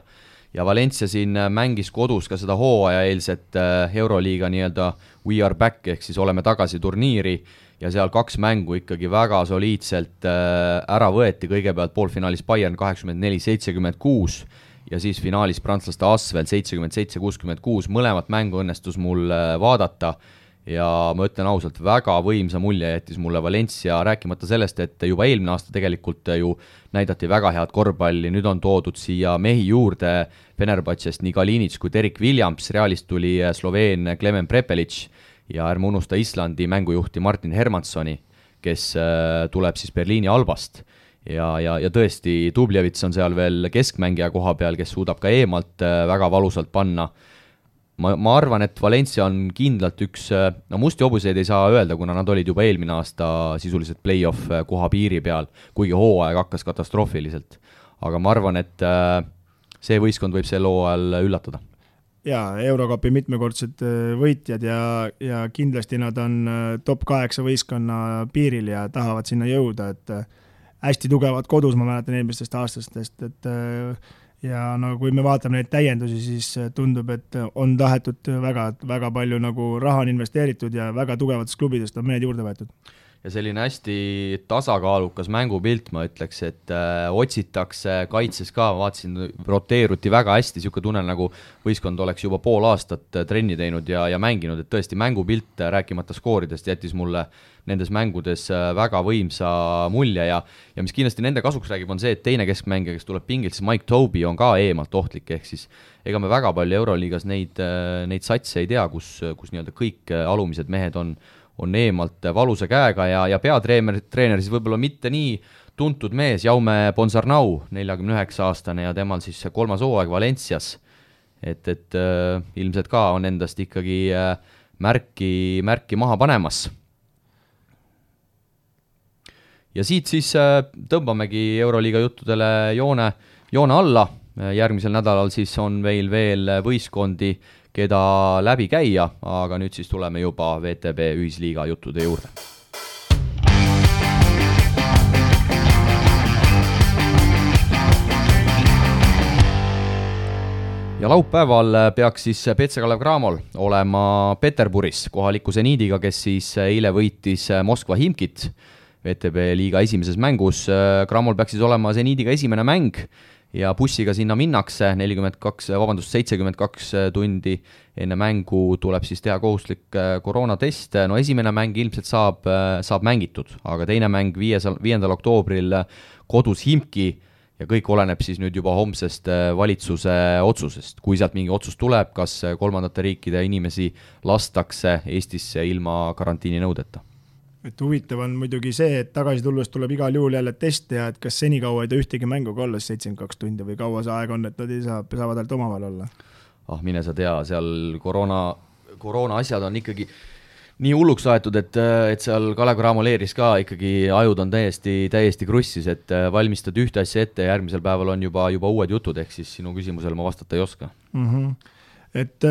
Ja Valencia siin mängis kodus ka seda hooajaeelset Euroliiga nii-öelda We Are Back, ehk siis oleme tagasi turniiri ja seal 2 mängu ikkagi väga soliidselt ära võeti, kõigepealt poolfinaalis Bayern 84-76 ja siis finaalis prantslaste Asvel 77-66, mõlemat mängu õnnestus mul vaadata ja ma ütlen ausalt, väga võimsa mulje jättis mulle Valencia, rääkimata sellest, et juba eelmine aasta tegelikult ju näidati väga head korvpalli, nüüd on toodud siia mehi juurde Fenerbahčest nii Kalinic kui Derek Williams, Realist tuli Sloveen Klemen Prepelic ja ärme unusta Islandi mängujuhti Martin Hermanssoni, kes tuleb siis Berliini Albast ja tõesti Dublevits on seal veel keskmängija koha peal, kes suudab ka eemalt väga valusalt panna. Ma arvan, et Valencia on kindlalt üks, musti hobuseid ei saa öelda, kuna nad olid juba eelmine aasta sisuliselt play-off koha piiri peal, kuigi hooaeg hakkas katastroofiliselt. Aga ma arvan, et see võistkond võib sel hooajal üllatada. Jaa, Eurokapi mitmekordsed võitjad ja kindlasti nad on top 8 võistkonna piiril ja tahavad sinna jõuda, et hästi tugevad kodus, ma mäletan eelmistest aastastest, et ja kui me vaatame neid täiendusi, siis tundub, et on tahetud väga palju nagu raha on investeeritud ja väga tugevatest klubidest on mehed juurde võetud. Ja selline hästi tasakaalukas mängupilt, ma ütleks, et otsitakse kaitses ka, vaatasin, roteeruti väga hästi, siuke tunne nagu võistkond oleks juba pool aastat trenni teinud ja mänginud, et tõesti mängupilt, rääkimata skooridest, jättis mulle nendes mängudes väga võimsa mulje ja mis kindlasti nende kasuks räägib, on see, et teine keskmängija, kes tuleb pingilt, siis Mike Tobey on ka eemalt ohtlik, ehk siis ega me väga palju Euroliigas neid satse ei tea, kus nii-öelda kõik alumised mehed on eemalt valusa käega ja peatreener siis võib-olla mitte nii tuntud mees, Jaume Ponsarnau, 49-aastane ja temal siis 3. hooaeg Valencias, et ilmselt ka on endast ikkagi märki maha panemas. Ja siit siis tõmbamegi Euroliiga juttudele joone alla, järgmisel nädalal siis on veel võistkondi, keda läbi käia, aga nüüd siis tuleme juba VTB ühisliiga juttude juurde. Ja laupäeval peaks siis PC Kalev Cramol olema Peterburis kohaliku Zeniidiga, kes siis eile võitis Moskva Himkit VTB liiga esimeses mängus. Cramol peaks siis olema Zeniidiga esimene mäng ja bussiga sinna minnakse 72 tundi enne mängu tuleb siis teha kohustuslik koroonatest. No esimene mäng ilmselt saab mängitud, aga teine mäng 5. oktoobril kodus Himki ja kõik oleneb siis nüüd juba homsest valitsuse otsusest. Kui sealt mingi otsus tuleb, kas kolmandate riikide inimesi lastakse Eestisse ilma karantiini nõudeta. Et huvitav on muidugi see, et tagasi tulles tuleb igal juhul jälle teste ja et kas senikaua ei ta ühtegi mänguga olla 72 tundi või kaua see aeg on, et nad ei saavad ainult omavahel olla? Mine sa tea, seal koroona asjad on ikkagi nii hulluks aetud, et seal Kalev Cramo leeris ka ikkagi ajud on täiesti krussis, et valmistad ühte asja ette ja järgmisel päeval on juba uued jutud, ehk siis sinu küsimusele ma vastata ei oska. Et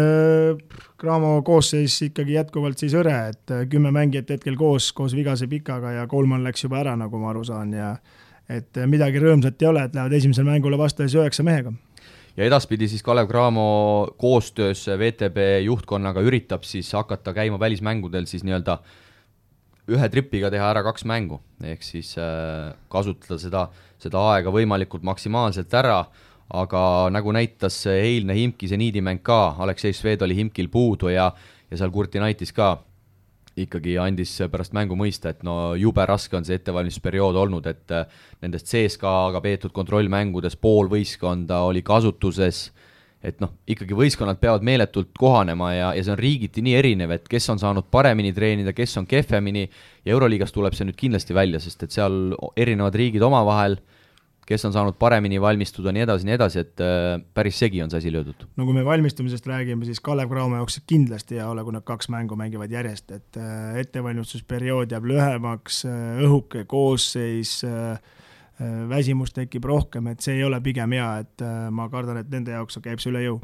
Cramo koosseis ikkagi jätkuvalt siis õre, et 10 mängijat hetkel koos vigase Pikaga ja Kolman läks juba ära, nagu ma aru saan, ja et midagi rõõmsat ei ole, et lähevad esimesel mängule vastas 9 mehega. Ja edaspidi siis Kalev Cramo koostöös VTB juhtkonnaga üritab siis hakata käima välismängudel siis nii-öelda ühe tripiga teha ära 2 mängu, ehk siis kasutada seda aega võimalikult maksimaalselt ära, aga nagu näitas eilne Himki Zeniidi mäng ka, Aleksei Šved oli Himkil puudu ja seal Kurtinaitis ka ikkagi andis pärast mängu mõista, et no jube raske on see ettevalmistusperiood olnud, et nendest CSKA-ga peetud kontrollmängudes pool võistkonda oli kasutuses, et noh, ikkagi võistkonnad peavad meeletult kohanema ja see on riigiti nii erinev, et kes on saanud paremini treenida, kes on kehvemini ja Euroliigas tuleb see nüüd kindlasti välja, sest et seal erinevad riigid omavahel, kes on saanud paremini valmistuda, nii edasi, et päris segi on see asi löödud. No kui me valmistumisest räägime, siis Kalev Cramo jaoks kindlasti ei ole, kui nad 2 mängu mängivad järjest, et ettevalmistusperiood jääb lühemaks, õhuke koosseis, väsimus tekib rohkem, et see ei ole pigem hea, et ma kardan, et nende jaoks käib see üle jõu.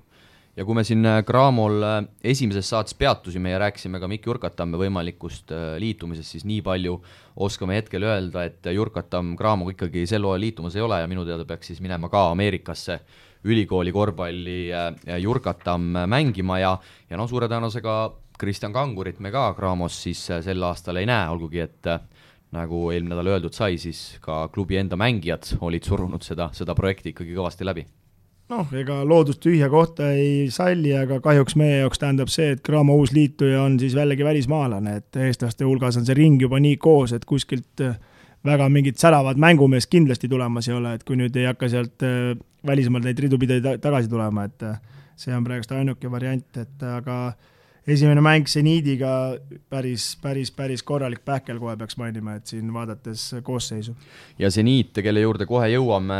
Ja kui me siin Cramol esimeses saates peatusime ja rääkisime ka Mikk Jurkatamme võimalikust liitumisest, siis nii palju oskame hetkel öelda, et Jurkatam Cramoga ikkagi sel hooajal liitumas ei ole ja minu teada peaks siis minema ka Ameerikasse ülikooli korvpalli Jurkatam mängima ja no suure tõenäosusega Kristjan Kangurit me ka Cramos siis sel aastal ei näe, olgugi et nagu eelmine nädal öeldud sai, siis ka klubi enda mängijad olid surunud seda projekti ikkagi kõvasti läbi. Noh, ega loodust tühja kohta ei salli, aga kahjuks meie jaoks tähendab see, et Cramo uus liituja on siis vällegi välismaalane, et eestlaste hulgas on see ring juba nii koos, et kuskilt väga mingid säravad mängumees kindlasti tulemas ei ole, et kui nüüd ei hakka sealt välismaalt neid ridupide tagasi tulema, et see on praegust ainuke variant, et aga esimene mäng Zeniidiga päris korralik pähkel kohe peaks mainima, et siin vaadates koosseisu. Ja Zeniit, kelle juurde kohe jõuame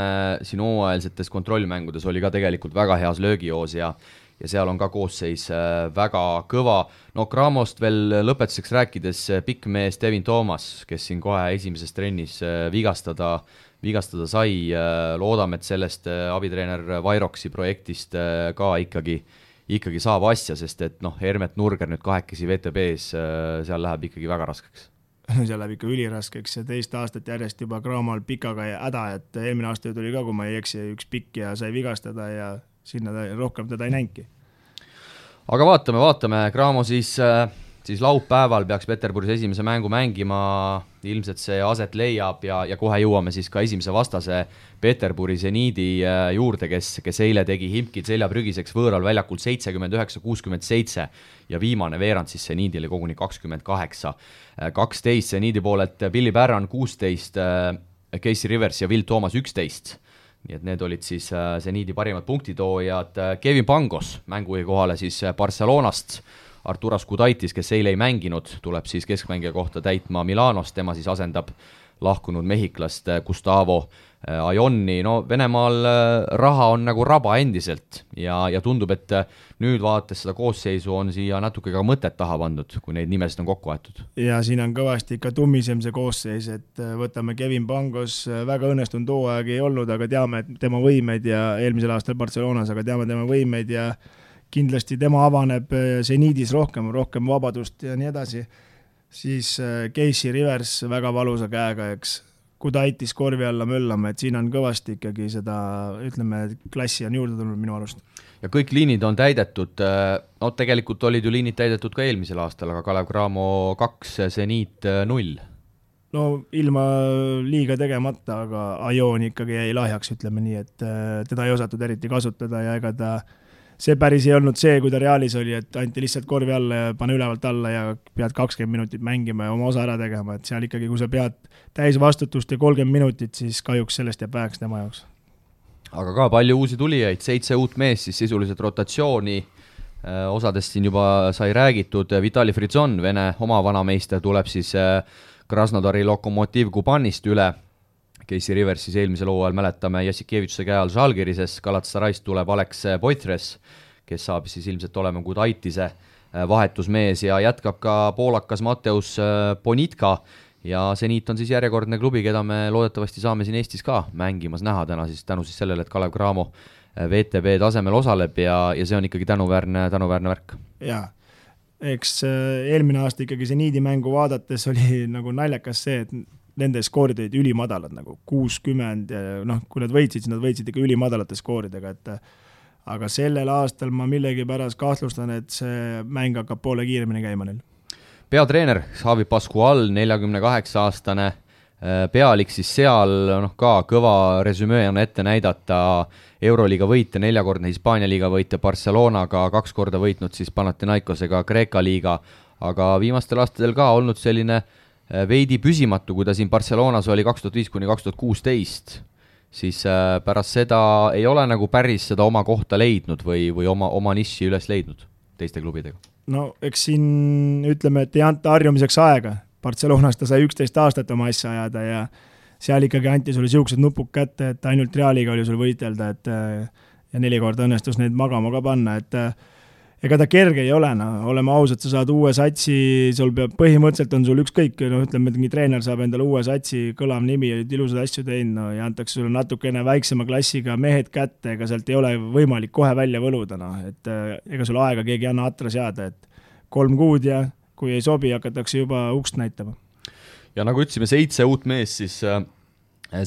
siin hooajalsetes kontrollmängudes, oli ka tegelikult väga heas löögijoos ja seal on ka koosseis väga kõva. No Cramost veel lõpetuseks rääkides pikk mees Devin Thomas, kes siin kohe esimeses trennis vigastada sai, loodame, et sellest abitreener Vairoksi projektist ka ikkagi saab asja, sest et Hermet Nurger nüüd kahekesi VTB-s, seal läheb ikkagi väga raskeks. Seal läheb ikka üliraskeks ja teist aastat järjest juba Cramol Pikaga ja häda, et eelmine aasta tuli ka, kui ma ei eksi, üks pikk ja sai vigastada ja sinna rohkem teda ei näinki. Aga vaatame, Cramo siis laupäeval peaks Peterburis esimese mängu mängima, ilmselt see aset leiab ja kohe jõuame siis ka esimese vastase Peterburi Zeniidi juurde, kes eile tegi Himkid seljaprügiseks võõral väljakul 79-67 ja viimane veerand siis Zeniidile koguni 28-12, Zeniidi poolelt Billy Barron 16, Casey Rivers ja Will Thomas 11. Nii et need olid siis Zeniidi parimad punktitoojad. Kevin Pangos mängujuhi kohale siis Barcelonast, Arturas Kudaitis, kes eile ei mänginud, tuleb siis keskmängija kohta täitma Milanost, tema siis asendab lahkunud mehhiklast Gustavo Ajonni. No Venemaal raha on nagu raba endiselt ja tundub, et nüüd vaadates seda koosseisu on siia natuke ka mõtet taha pandud, kui neid nimesid on kokku aetud. Ja siin on kõvasti ikka tummisem see koosseis, et võtame Kevin Pangos, väga õnnestunud hooaeg ei olnud, aga teame tema võimeid ja eelmisel aastal Barcelonas, aga teame tema võimeid ja kindlasti tema avaneb Zeniidis rohkem vabadust ja nii edasi, siis Casey Rivers väga valusa käega, eks Kudaitis korvi alla möllama, et siin on kõvasti ikkagi seda, ütleme, klassi on juurde tulnud minu arust. Ja kõik liinid on täidetud, no tegelikult olid ju liinid täidetud ka eelmisel aastal, aga Kalev Cramo 2, Zeniit 0. no ilma liiga tegemata, aga Ajoon ikkagi jäi lahjaks, ütleme nii, et teda ei osatud eriti kasutada ja ega ta see päris ei olnud see, kui ta Realis oli, et anti lihtsalt korvi alla ja pane ülevalt alla ja pead 20 minutit mängima ja oma osa ära tegema, et seal ikkagi, kui sa pead täis vastutust ja 30 minutit, siis kahjuks sellest jääb väheks tema jaoks. Aga ka palju uusi tulijaid, 7 uut meest siis sisuliselt rotatsiooni, osadest siin juba sai räägitud, Vitali Frizon, Vene oma vanameister, tuleb siis Krasnodari Lokomotiv Kubanist üle, Casey Rivers siis eelmisel hooajal mäletame Jassikevitšuse käe all Žalgirises, Galatasarayst tuleb Alex Poitres, kes saab siis ilmselt olema Gudaitise vahetusmees ja jätkab ka poolakas Mateus Bonitka ja Zenit on siis järjekordne klubi, keda me loodetavasti saame siin Eestis ka mängimas näha täna siis tänu siis sellele, et Kalev Cramo VTB tasemel osaleb ja see on ikkagi tänuväärne värk. Jaa, eks eelmine aasta ikkagi Zenidi mängu vaadates oli nagu naljakas see, et nende skoorid olid ülimadalad, nagu 60 ja kui nad võitsid, siis nad võitsid ikka ülimadalate skooridega, et aga sellel aastal ma millegipärast kahtlustan, et see mäng hakkab poole kiiremini käima neil. Peatreener Xavi Pascual, 48-aastane pealik siis seal, ka kõva resümee on ette näidata, Euroliiga võitja, 4-kordne Hispaania liiga võitja Barcelonaga, 2 korda võitnud siis Panathinaikosega Kreeka liiga, aga viimastel aastatel ka olnud selline veidi püsimatu, kui ta siin Barcelonas oli 2005–2016, siis pärast seda ei ole nagu päris seda oma kohta leidnud või oma niši üles leidnud teiste klubidega. No eks siin ütleme, et ei anta harjumiseks aega. Barcelonas ta sai 11 aastat oma asja ajada ja seal ikkagi anti sulle siuksed nupuk kätte, et ainult Realiga oli sul võitelda, et ja 4 korda õnnestus neid magama ka panna, et ega ta kerge ei ole, oleme ausad, sa saad uue satsi, sul peab, põhimõtteliselt on sul ükskõik, ütleme, et mingi treener saab endale uue satsi, kõlav nimi, ilusad asju teinud, ja antakse sulle natukene väiksema klassiga mehed kätte, ega sealt ei ole võimalik kohe välja võluda, et ega sul aega keegi ei anna atra seada, et 3 kuud ja kui ei sobi, hakatakse juba ukst näitama. Ja nagu ütlesime, 7 uut mees siis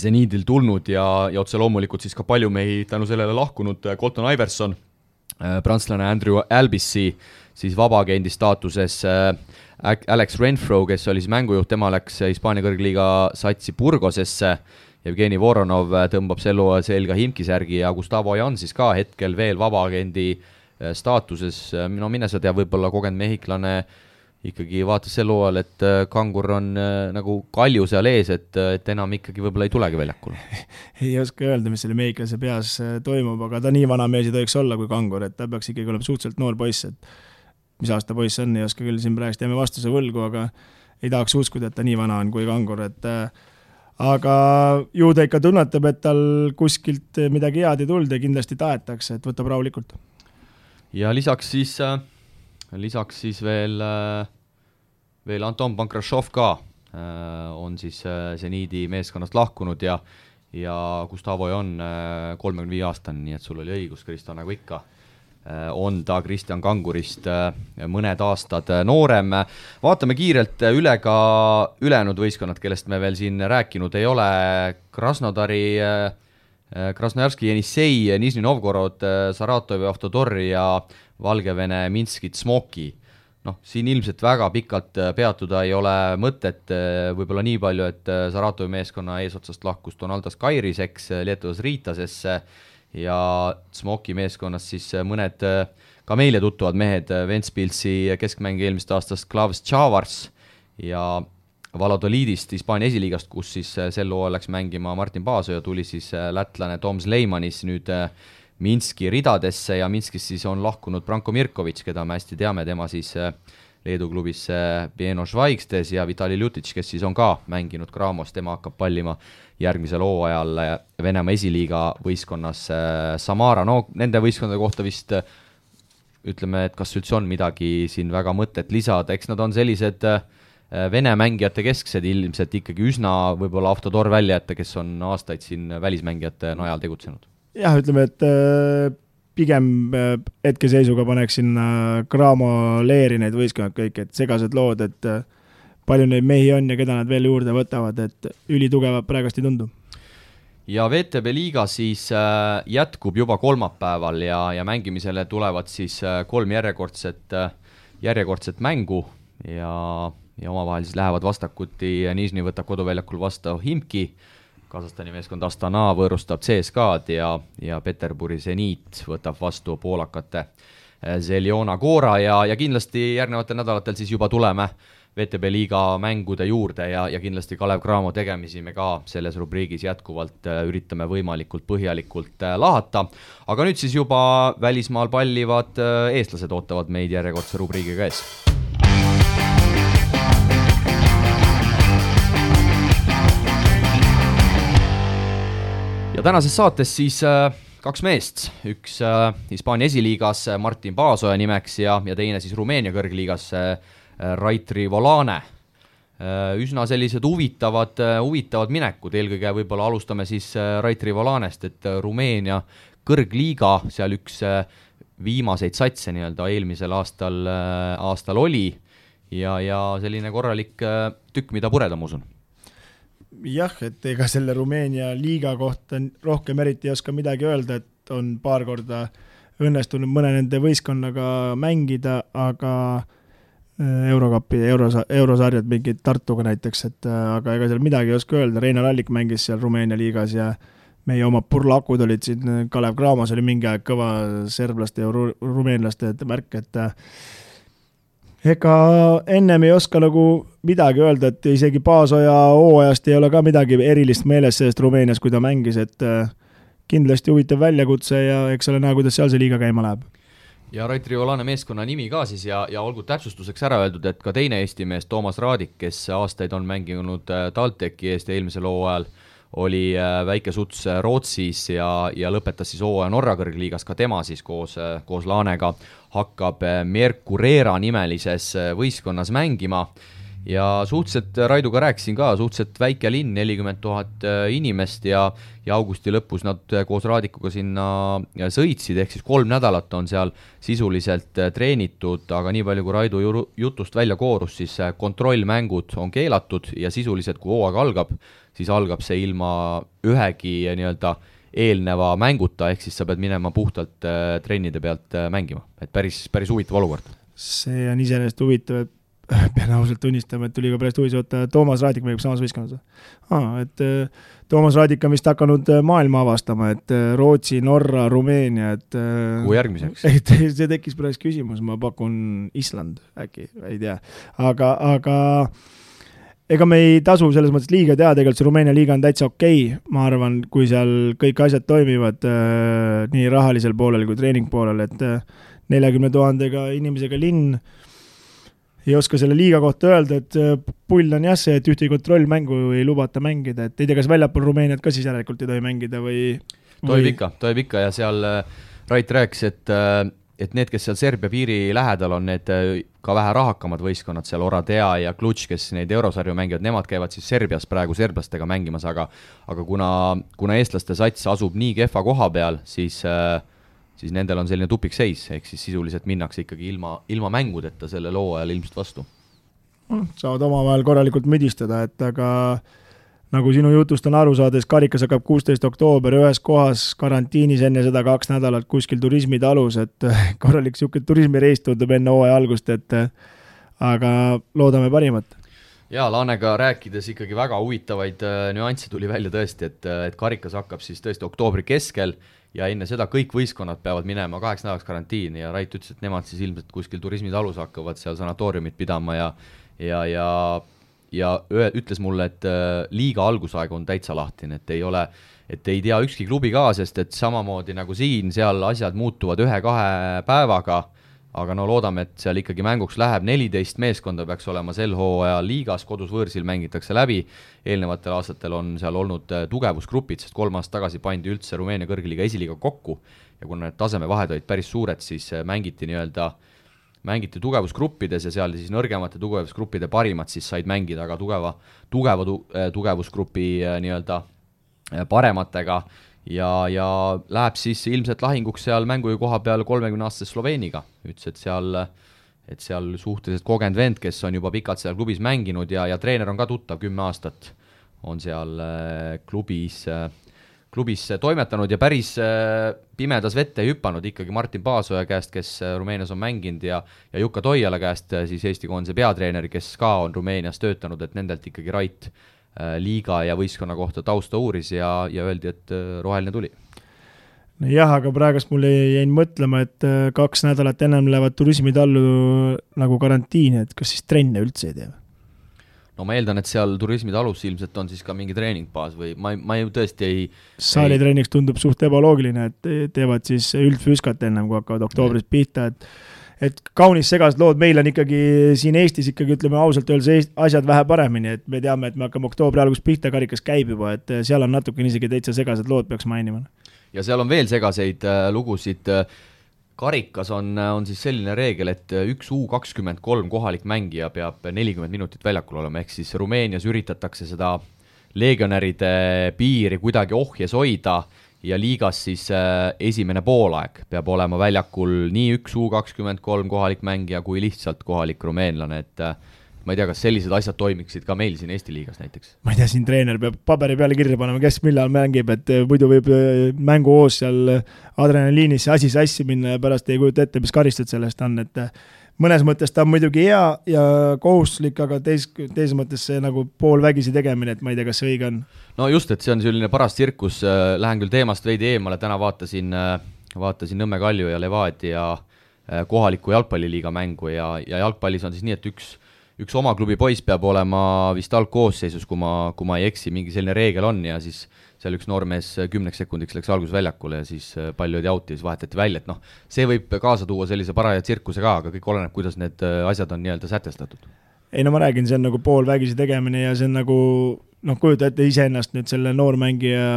Zenidil tulnud ja otse loomulikult siis ka palju mehi tänu sellele lahkunud Colton Iverson, prantslane Andrew Albissi, siis vabaagendi staatuses Alex Renfro, kes oli siis mängujuht, tema läks Hispaania kõrgliiga satsi Burgosesse, Jevgeni Voronov tõmbab sel hooajal selga Himkisärgi ja Gustavo Ajan siis ka hetkel veel vabaagendi staatuses, mine sa tea, võib-olla kogenud mehhiklane ikkagi vaatas sel hooajal, et Kangur on nagu kalju seal ees, et enam ikkagi võib-olla ei tulegi väljakule. Ei oska öelda, mis selle mehhiklase peas toimub, aga ta nii vana mees ei tohiks olla kui Kangur, et ta peaks ikkagi olema suhteliselt noor poiss, et mis aasta poiss on, ei oska küll siin praegust jääme vastuse võlgu, aga ei tahaks uskuda, et ta nii vana on kui Kangur, et aga ju ta ikka tunnetab, et tal kuskilt midagi head ei tulda ja kindlasti taetakse, et võtab rahulikult. Ja lisaks siis veel Anton Pankrashov ka on siis Zenidi meeskonnast lahkunud ja Gustavo on 35-aastane, nii et sul oli õigus, Kristo, nagu ikka on ta Kristjan Kangurist mõned aastad noorem. Vaatame kiirelt üle ka ülejäänud võistkonnad, kellest me veel siin rääkinud ei ole. Krasnodari, Krasnojarski Jenissei, Nižni Novgorod, Saratovi Avtodor ja Valgevene Minskit Smoki. Siin ilmselt väga pikalt peatuda ei ole mõtet, võib-olla nii palju, et Saratovi meeskonna eesotsast lahkus Donaldas Kairiseks Lietuvas Riitasesse ja Smoki meeskonnas siis mõned ka meile tuttuvad mehed, Ventspilsi keskmäng eelmist aastast Klavs Tšavars ja Valladolidist Hispaania esiliigast, kus siis sel hooajal läks mängima Martin Paasoja, tuli siis lätlane Toms Leimanis nüüd Minski ridadesse ja Minskis siis on lahkunud Branko Mirkovic, keda me hästi teame, tema siis Leedu klubis Pieno Švaigstes ja Vitali Ljutic, kes siis on ka mänginud Cramos, tema hakkab pallima järgmisel hooajal Venemaa esiliiga võistkonnas Samara. Nende võistkondade kohta vist ütleme, et kas üldse on midagi siin väga mõtet lisada, eks nad on sellised Vene mängijate kesksed ilmselt ikkagi üsna võib-olla Avtodor välja jätta, kes on aastaid siin välismängijate najal tegutsenud. Jah, ütleme, et pigem hetkeseisuga paneks sinna Cramo leeri neid võistkonnad kõik, et segased lood, et palju neid mehi on ja keda nad veel juurde võtavad, et ülitugevad praegust ei tundu. Ja VTB liiga siis jätkub juba kolmapäeval ja mängimisele tulevad siis 3 järjekordset mängu ja ja omavahel siis lähevad vastakuti, Nižni võtab koduväljakul vastu Himki, Kasahstani meeskond Astana võõrustab CSKA-d ja Peterburi Zenit võtab vastu poolakate Zeljona Gora ja kindlasti järgnevatel nädalatel siis juba tuleme VTB liiga mängude juurde ja kindlasti Kalev Cramo tegemisi me ka selles rubriigis jätkuvalt üritame võimalikult põhjalikult lahata. Aga nüüd siis juba välismaal pallivad eestlased ootavad meid järjekordse rubriigiga ees. Ja tänases saates siis kaks meest, üks Hispaania esiliigas Martin Paasoja nimeks ja teine siis Rumeenia kõrgliigas Raitri Volane. Üsna sellised huvitavad minekud, eelkõige võib-olla alustame siis Raitri Volanest, et Rumeenia kõrgliiga, seal üks viimaseid satse nii-öelda eelmisel aastal oli ja selline korralik tükk, mida pureda, ma usun. Jah, et ega selle Rumeenia liiga kohta rohkem eriti ei oska midagi öelda, et on paar korda õnnestunud mõne nende võistkonnaga mängida, aga Eurokapi, eurosarjad mingid Tartuga näiteks, aga ega seal midagi ei oska öelda. Reinar Allik mängis seal Rumeenia liigas ja meie oma purlakud olid siin, Kalev Cramos oli mingi aeg kõva serblaste ja rumeenlaste märk, et ega ennem ei oska nagu midagi öelda, et isegi Paasoja hooajast ei ole ka midagi erilist meeles sellest Rumeenias, kui ta mängis, et kindlasti huvitav väljakutse ja eks ole näha, kuidas seal see liiga käima läheb. Ja Raitri Volane meeskonna nimi ka siis ja olgu täpsustuseks ära öeldud, et ka teine Eesti mees Toomas Raadik, kes aastaid on mänginud TalTechi eest eelmisel hooajal, oli väike suts Rootsis ja lõpetas siis hooaja Norra kõrgliigas, ka tema siis koos Laanega hakkab Mercurera nimelises võistkonnas mängima ja suhteliselt, Raiduga rääkisin ka, suhteliselt väike linn, 40 000 inimest ja augusti lõpus nad koos Raadikuga sinna sõitsid, ehk siis 3 nädalat on seal sisuliselt treenitud, aga nii palju kui Raidu jutust välja koorus, siis kontrollmängud on keelatud ja sisuliselt kui hooaeg algab, siis algab see ilma ühegi nii-öelda eelneva mänguta, ehk siis sa pead minema puhtalt trennide pealt mängima, et päris huvitav olukord. See on iseenesest huvitav, et pean ausalt tunnistama, et tuli ka pärast huvitav, et Toomas Raadik mängib samas võistkonnas. Et Toomas Raadik on vist hakanud maailma avastama, et Rootsi, Norra, Rumeenia, et kui järgmiseks? See tekkis pärast küsimus, ma pakun Island äkki, ei tea. Aga ega me ei tasu selles mõttes liiga teha, tegelikult see Rumeenia liiga on täitsa okei, ma arvan, kui seal kõik asjad toimivad nii rahalisel poolel kui treening poolel, et 40 000 inimesega linn ei oska selle liiga kohta öelda, et pull on jah see, et ühtegi kontrollmängu ei lubata mängida, et ei tea, kas väljapool Rumeeniat ka siis järelikult ei tohi mängida või... Tohib ikka ja seal Rait rääkis, et need, kes seal Serbia piiri lähedal on, need ka vähe rahakamad võistkonnad, seal Oradea ja Klutš, kes neid eurosarju mängivad, nemad käivad siis Serbias praegu serblastega mängimas, aga kuna eestlaste sats asub nii kehva koha peal, siis nendel on selline tupikseis, ehk siis sisuliselt minnakse ikkagi ilma mängudeta selle loo ajal ilmselt vastu. Saavad omavahel korralikult müdistada, et aga nagu sinu jutust on aru saades, karikas hakkab 16. oktoober ühes kohas karantiinis enne seda 2 nädalat kuskil turismitalus, et korralik siuke turismireis tundub enne hooaja algust, et aga loodame parimat. Ja Laanega rääkides ikkagi väga huvitavaid nüansse tuli välja tõesti, et karikas hakkab siis tõesti oktoobri keskel ja enne seda kõik võistkonnad peavad minema 8 nädalaks karantiini ja Rait ütles, et nemad siis ilmselt kuskil turismitalus hakkavad seal sanatooriumit pidama ja ütles mulle, et liiga algusaeg on täitsa lahtine, et ei tea ükski klubi ka, sest et samamoodi nagu siin, seal asjad muutuvad 1-2 päevaga, aga no loodame, et seal ikkagi mänguks läheb 14 meeskonda peaks olema sel hooajal liigas, kodus võõrsil mängitakse läbi, eelnevatel aastatel on seal olnud tugevusgrupid, sest 3 aastat tagasi pandi üldse Rumeenia kõrgliiga esiliiga kokku ja kuna need tasemevahed olid päris suured, siis mängiti tugevusgruppides ja seal siis nõrgemate tugevusgruppide parimad siis said mängida, aga tugevusgrupi nii-öelda parematega ja läheb siis ilmselt lahinguks seal mängu koha peal 30-aastase Sloveeniga. Ütles, et seal suhteliselt kogenud vend, kes on juba pikalt seal klubis mänginud ja treener on ka tuttav 10 aastat, on seal klubis klubis toimetanud ja päris pimedas vette ei hüpanud ikkagi Martin Paasoja käest, kes Rumeenias on mänginud ja Jukka Toiala käest, siis Eesti koondise peatreeneri, kes ka on Rumeenias töötanud, et nendelt ikkagi Rait liiga ja võistkonna kohta tausta uuris ja öeldi, et roheline tuli. Jah, aga praegust mul jäin mõtlema, et 2 nädalat ennem lähevad turismitallu nagu karantiini, et kas siis trenne üldse ei tee? No ma eeldan, et seal turismitalus ilmselt on siis ka mingi treeningbaas või ma ju tõesti ei... Saalitreeniks tundub suht ebaloogiline, et teevad siis üldfüüskat ennem, kui hakkavad oktoobris pihta, et kaunis segased lood, meil on ikkagi siin Eestis ikkagi, ütleme ausalt öeldes, asjad vähe paremini, et me teame, et me hakkame oktoobri algus pihta, karikas käib juba, et seal on natuke isegi täitsa segased lood, peaks mainima. Ja seal on veel segaseid lugusid. Karikas on siis selline reegel, et üks U23 kohalik mängija peab 40 minutit väljakul olema, ehk siis Rumeenias üritatakse seda legionäride piiri kuidagi ohjes hoida ja liigas siis esimene poolaeg peab olema väljakul nii üks U23 kohalik mängija kui lihtsalt kohalik rumeenlane, et ma ei tea, kas sellised asjad toimiksid ka meil siin Eesti liigas näiteks? Ma ei tea, siin treener peab paberi peale kirja panema, kes millal mängib, et muidu võib mängu hoos seal adrenaliinis asi sassi minna ja pärast ei kujuta ette, mis karistud sellest on, et mõnes mõttes ta on muidugi hea ja kohustuslik, aga teises mõttes see nagu poolvägisi tegemine, et ma ei tea, kas see õige on. No just, et see on selline paras tsirkus, lähen küll teemast veidi eemale, täna vaatasin Nõmme Kalju ja Levadia kohaliku jalgpalliliiga mängu ja jalgpallis on siis nii, et üks oma klubi poiss peab olema vist algkoosseisus, kui ma ei eksi, mingi selline reegel on ja siis seal üks noormees 10 sekundiks läks algusväljakule ja siis palju oli auti ja siis vahetati välja, et see võib kaasa tuua sellise paraja tsirkuse ka, aga kõik oleneb, kuidas need asjad on nii-öelda sätestatud. Ei no ma räägin, see on nagu poolvägisi tegemine ja see on nagu, kujuta ette iseennast nüüd selle noormängija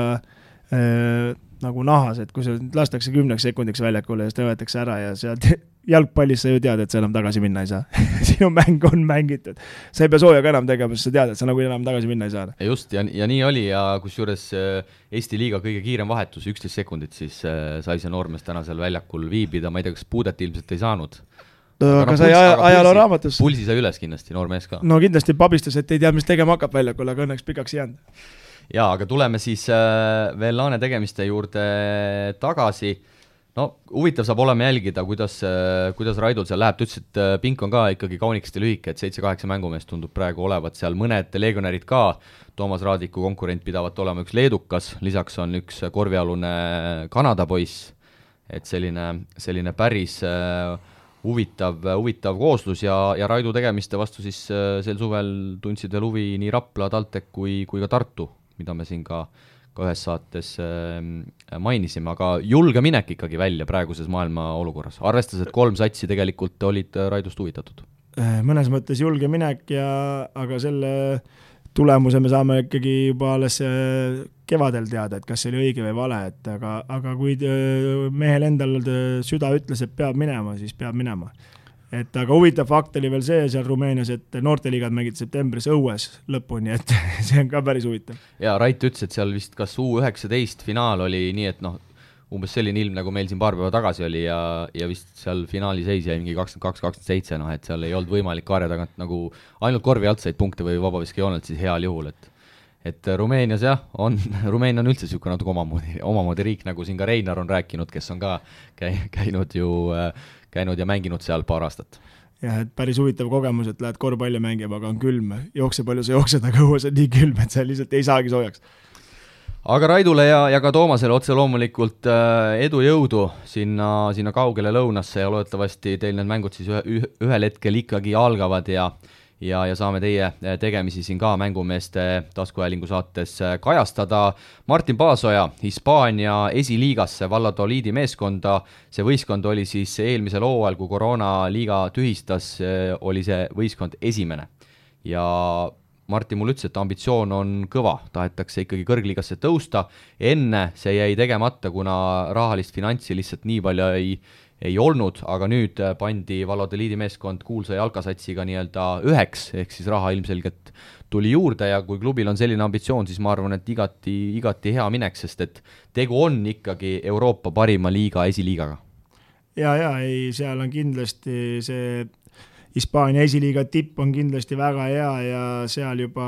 nagu nahas, et kui see lastakse 10 sekundiks väljakule ja siis võetakse ära ja sealt jalgpallis sa ju tead, et sa enam tagasi minna ei saa. Sinu mäng on mängitud. Sa ei pea sooja ka enam tegema, sest sa tead, et sa nagu enam tagasi minna ei saa. Just, ja nii oli ja kusjuures Eesti liiga kõige kiirem vahetus, 11 sekundit, siis sai see noormees täna seal väljakul viibida, ma ei tea, kas puudet ilmselt ei saanud. Aga sai ajaloo raamatus. Pulsi sai üles kindlasti, noormees ka. No kindlasti pabistas, et ei tea, mis tegema hakkab väljakul, aga õnneks pikaks ei jäänud. Jaa, aga tuleme siis veel laane tegemiste juurde tagasi. No huvitav saab olema jälgida, kuidas Raidul seal läheb. Ta ütles, et pink on ka ikkagi kaunikesti lühike, et 7-8 mängumeest tundub praegu olevat seal mõned legionärid ka. Toomas Raadiku konkurent pidavat olema üks leedukas, lisaks on üks korvialune Kanada poiss. Et selline päris huvitav kooslus ja Raidu tegemiste vastu siis sel suvel tundsid veel huvi nii Rapla, TalTech kui ka Tartu, mida me siin ka ühes saates mainisime, aga julge minek ikkagi välja praeguses maailma olukorras, arvestades, et 3 satsi tegelikult olid Raidust huvitatud. Mõnes mõttes julge minek, aga selle tulemuse me saame ikkagi juba alles kevadel teada, et kas see oli õige või vale, aga kui mehel endal süda ütles, et peab minema, siis peab minema. Aga huvitav fakt oli veel see seal Rumeenias, et noorteliigad mängid septembris õues lõpuni, et see on ka päris huvitav. Ja Rait ütles, et seal vist kas U19 finaal oli nii, et umbes selline ilm, nagu meil siin paar päeva tagasi oli ja vist seal finaali seis jäi mingi 22-27, et seal ei olnud võimalik kaarja tagant nagu ainult korvi alt said punkte või vabaviskijoonelt siis heal juhul, et Rumeenias Rumeenia on üldse niisugune natuke omamoodi riik, nagu siin ka Reinar on rääkinud, kes on ka käinud ja mänginud seal paar aastat. Jah, et päris huvitav kogemus, et lähed korvpalli mängima, aga on külm, jookse palju sa jooksed, aga õues on nii külm, et sa lihtsalt ei saagi soojaks. Aga Raidule ja ka Toomasele otse loomulikult edu jõudu sinna kaugele lõunasse ja loodetavasti teil need mängud siis ühel hetkel ikkagi algavad ja saame teie tegemisi siin ka mängumeeste taskuhäälingu saates kajastada. Martin Paasoja Hispaania esiliigasse Valladoliidi meeskonda. See võistkond oli siis eelmisel hooajal, kui koroonaliiga tühistas, oli see võistkond esimene. Ja Martin mul ütles, et ambitsioon on kõva, tahetakse ikkagi kõrgliigasse tõusta. Enne see jäi tegemata, kuna rahalist finantsi lihtsalt nii palju ei olnud, aga nüüd pandi Valladoliidi meeskond kuulsa jalkasatsiga nii-öelda 1, ehk siis raha ilmselgelt tuli juurde ja kui klubil on selline ambitsioon, siis ma arvan, et igati hea minek, sest et tegu on ikkagi Euroopa parima liiga esiliigaga. Seal on kindlasti see Hispaania esiliiga tipp on kindlasti väga hea ja seal juba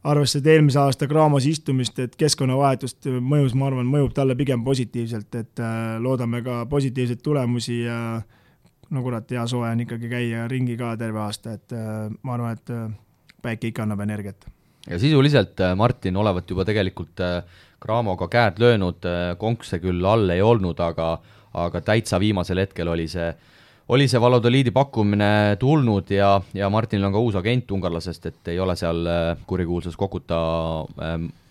arvesse, et eelmise aasta Graamos istumist, et keskkonnavahetust mõjus, ma arvan, mõjub talle pigem positiivselt, et loodame ka positiivseid tulemusi ja no kurat, hea soe on ikkagi käia ringi ka terve aasta, et ma arvan, et päike ikka annab energiat. Ja sisuliselt Martin olevat juba tegelikult Graamoga käed löönud, konkse küll all ei olnud, aga täitsa viimasel hetkel oli see Valladoliidi pakkumine tulnud ja Martinil on ka uus agent ungarlasest, et ei ole seal kurikuulsas Kokuta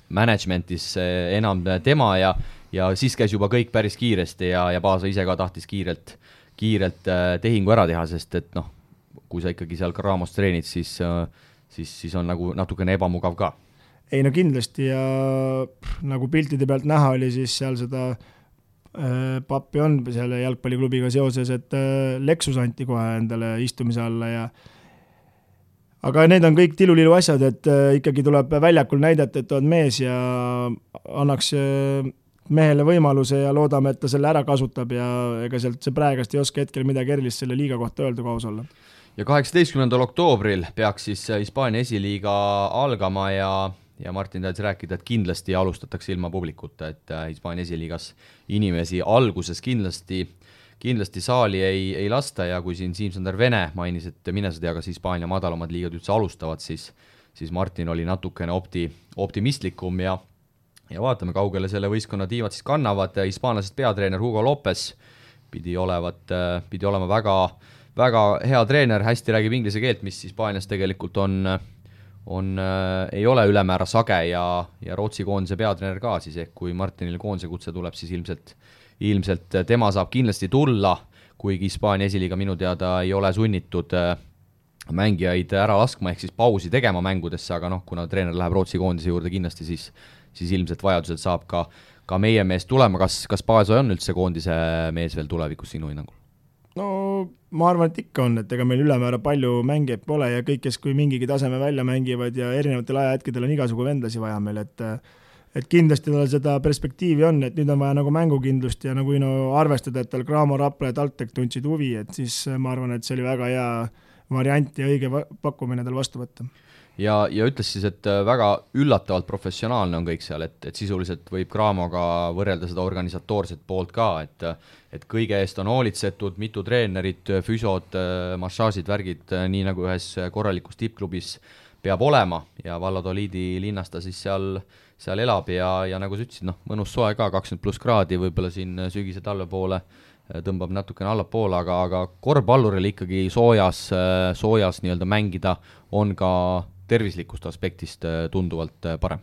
managementis enam tema ja siis käis juba kõik päris kiiresti ja Paasa ise ka tahtis kiirelt tehingu ära teha, sest et noh, kui sa ikkagi seal Graamos treenid, siis on nagu natukene ebamugav ka. Ei no kindlasti ja nagu piltide pealt näha oli, siis seal seda pappi on selle jalgpalliklubiga seoses, et Lexus anti kohe endale istumise alla aga need on kõik tilulilu asjad, et ikkagi tuleb väljakul näidata, et on mees ja annaks mehele võimaluse ja loodame, et ta selle ära kasutab ja ega sealt see praegast ei oska hetkel midagi erilist selle liiga kohta öelda, kui aus olla. Ja 18. oktoobril peaks siis Hispaania esiliiga algama ja Martin tahtis rääkida, et kindlasti alustatakse ilma publikuta, et Hispaania esiliigas inimesi alguses kindlasti saali ei lasta ja kui siin Siim-Sander Vene mainis, et mine sa tea, kas Hispaania madalamad liigad üldse alustavad, siis Martin oli natukene optimistlikum ja vaatame, kaugele selle võistkonna tiivad siis kannavad. Hispaanlasest peatreener Hugo Lopez pidi olema väga hea treener, hästi räägib inglise keelt, mis Hispaanias tegelikult ei ole ülemäära sage ja Rootsi koondise peatreener ka siis, ehk kui Martinil koondise kutse tuleb, siis ilmselt tema saab kindlasti tulla, kuigi Hispaania esiliiga minu teada ei ole sunnitud mängijaid ära laskma, ehk siis pausi tegema mängudesse, aga noh, kuna treener läheb Rootsi koondise juurde kindlasti, siis ilmselt vajadusel saab ka meie mees tulema. Kas Paasa on üldse koondise mees veel tulevikus sinu hinnangul? No ma arvan, et ikka on, et ega meil ülemäära palju mängijaid pole ja kõik, kes kui mingigi taseme välja mängivad ja erinevatel ajahetkedel on igasugu vendlasi vaja meil, et kindlasti tal seda perspektiivi on, et nüüd on vaja nagu mängukindlust ja nagu arvestada, et tal Graamo, Rapla ja TalTech tundsid huvi, et siis ma arvan, et see oli väga hea variant ja õige pakkumine tal vastu võtta. Ja ütles siis, et väga üllatavalt professionaalne on kõik seal, et sisuliselt võib Graamoga võrrelda seda organisatoorset poolt ka, et kõige eest on hoolitsetud, mitu treenerit, füsod, massaažid, värgid, nii nagu ühes korralikus tippklubis peab olema ja Valladoliidi linnas ta siis seal elab ja nagu sa ütlesid, mõnus soe ka, 20+ kraadi, võib-olla siin sügise talve poole tõmbab natukene allapoole, aga korvpalluril ikkagi soojas nii-öelda mängida on ka tervislikust aspektist tunduvalt parem.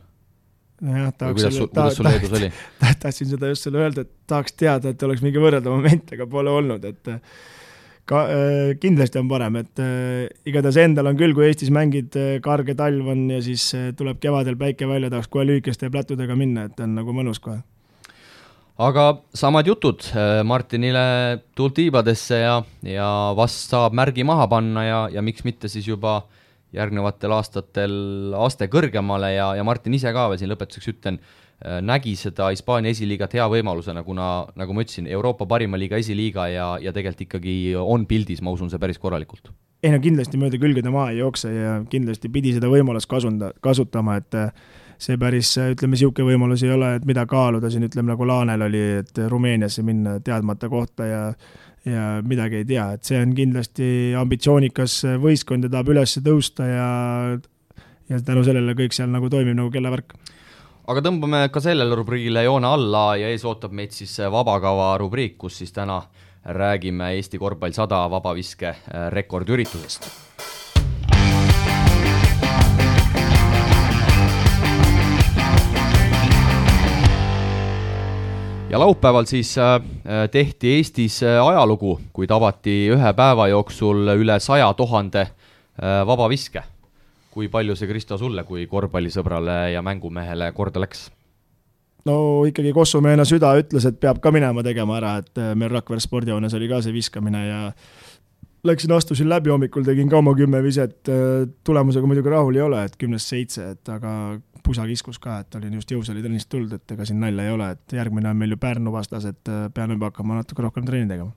Jah, kuidas sul Leedus oli? Tahtsin seda just selle öelda, et tahaks teada, et oleks mingi võrrelda moment, aga pole olnud, et kindlasti on parem, et igatahes endal on küll, kui Eestis mängid, karge talv on ja siis tuleb kevadel päike välja, tahaks kohe lühikeste plätudega minna, et on nagu mõnus kohe. Aga samad jutud Martinile tultiibadesse ja vast saab märgi maha panna ja miks mitte siis juba järgnevatel aastatel aste kõrgemale ja Martin ise ka veel siin lõpetuseks ütlen, nägi seda Hispaania esiliigat hea võimalusena, kuna nagu ma ütlesin, Euroopa parima liiga esiliiga ja tegelikult ikkagi on pildis, ma usun see päris korralikult. Ei no kindlasti mööda külgede maa ei jookse ja kindlasti pidi seda võimalust kasutama, et see päris, ütleme, siuke võimalus ei ole, et mida kaaluda siin, ütleme nagu Laanel oli, et Rumeeniasse minna teadmata kohta ja midagi ei tea, et see on kindlasti ambitsioonikas võistkond ja tahab üles tõusta ja tänu sellele kõik seal nagu toimib nagu kellavärk. Aga tõmbame ka sellele rubriigile joone alla ja ees ootab meid siis vabakava rubriik, kus siis täna räägime Eesti korvpall 100 vabaviske rekordüritusest. Ja laupäeval siis tehti Eestis ajalugu, kuid avati ühe päeva jooksul üle 100 000 vabaviske. Kui palju see, Kristo, sulle kui korvpallisõbrale ja mängumehele korda läks? No ikkagi Kossumeena süda ütles, et peab ka minema tegema ära, et meil Rakvere spordijoones oli ka see viskamine ja astusin läbi hommikul, tegin ka oma 10 viset, tulemusega muidugi rahul ei ole, et 10-7, et aga pusa kiskus ka, et olin just jõusaalitennist tulnud, et ega siin nalja ei ole, et järgmine on meil ju Pärnu vastas, et pean juba hakkama natuke rohkem treeni tegema.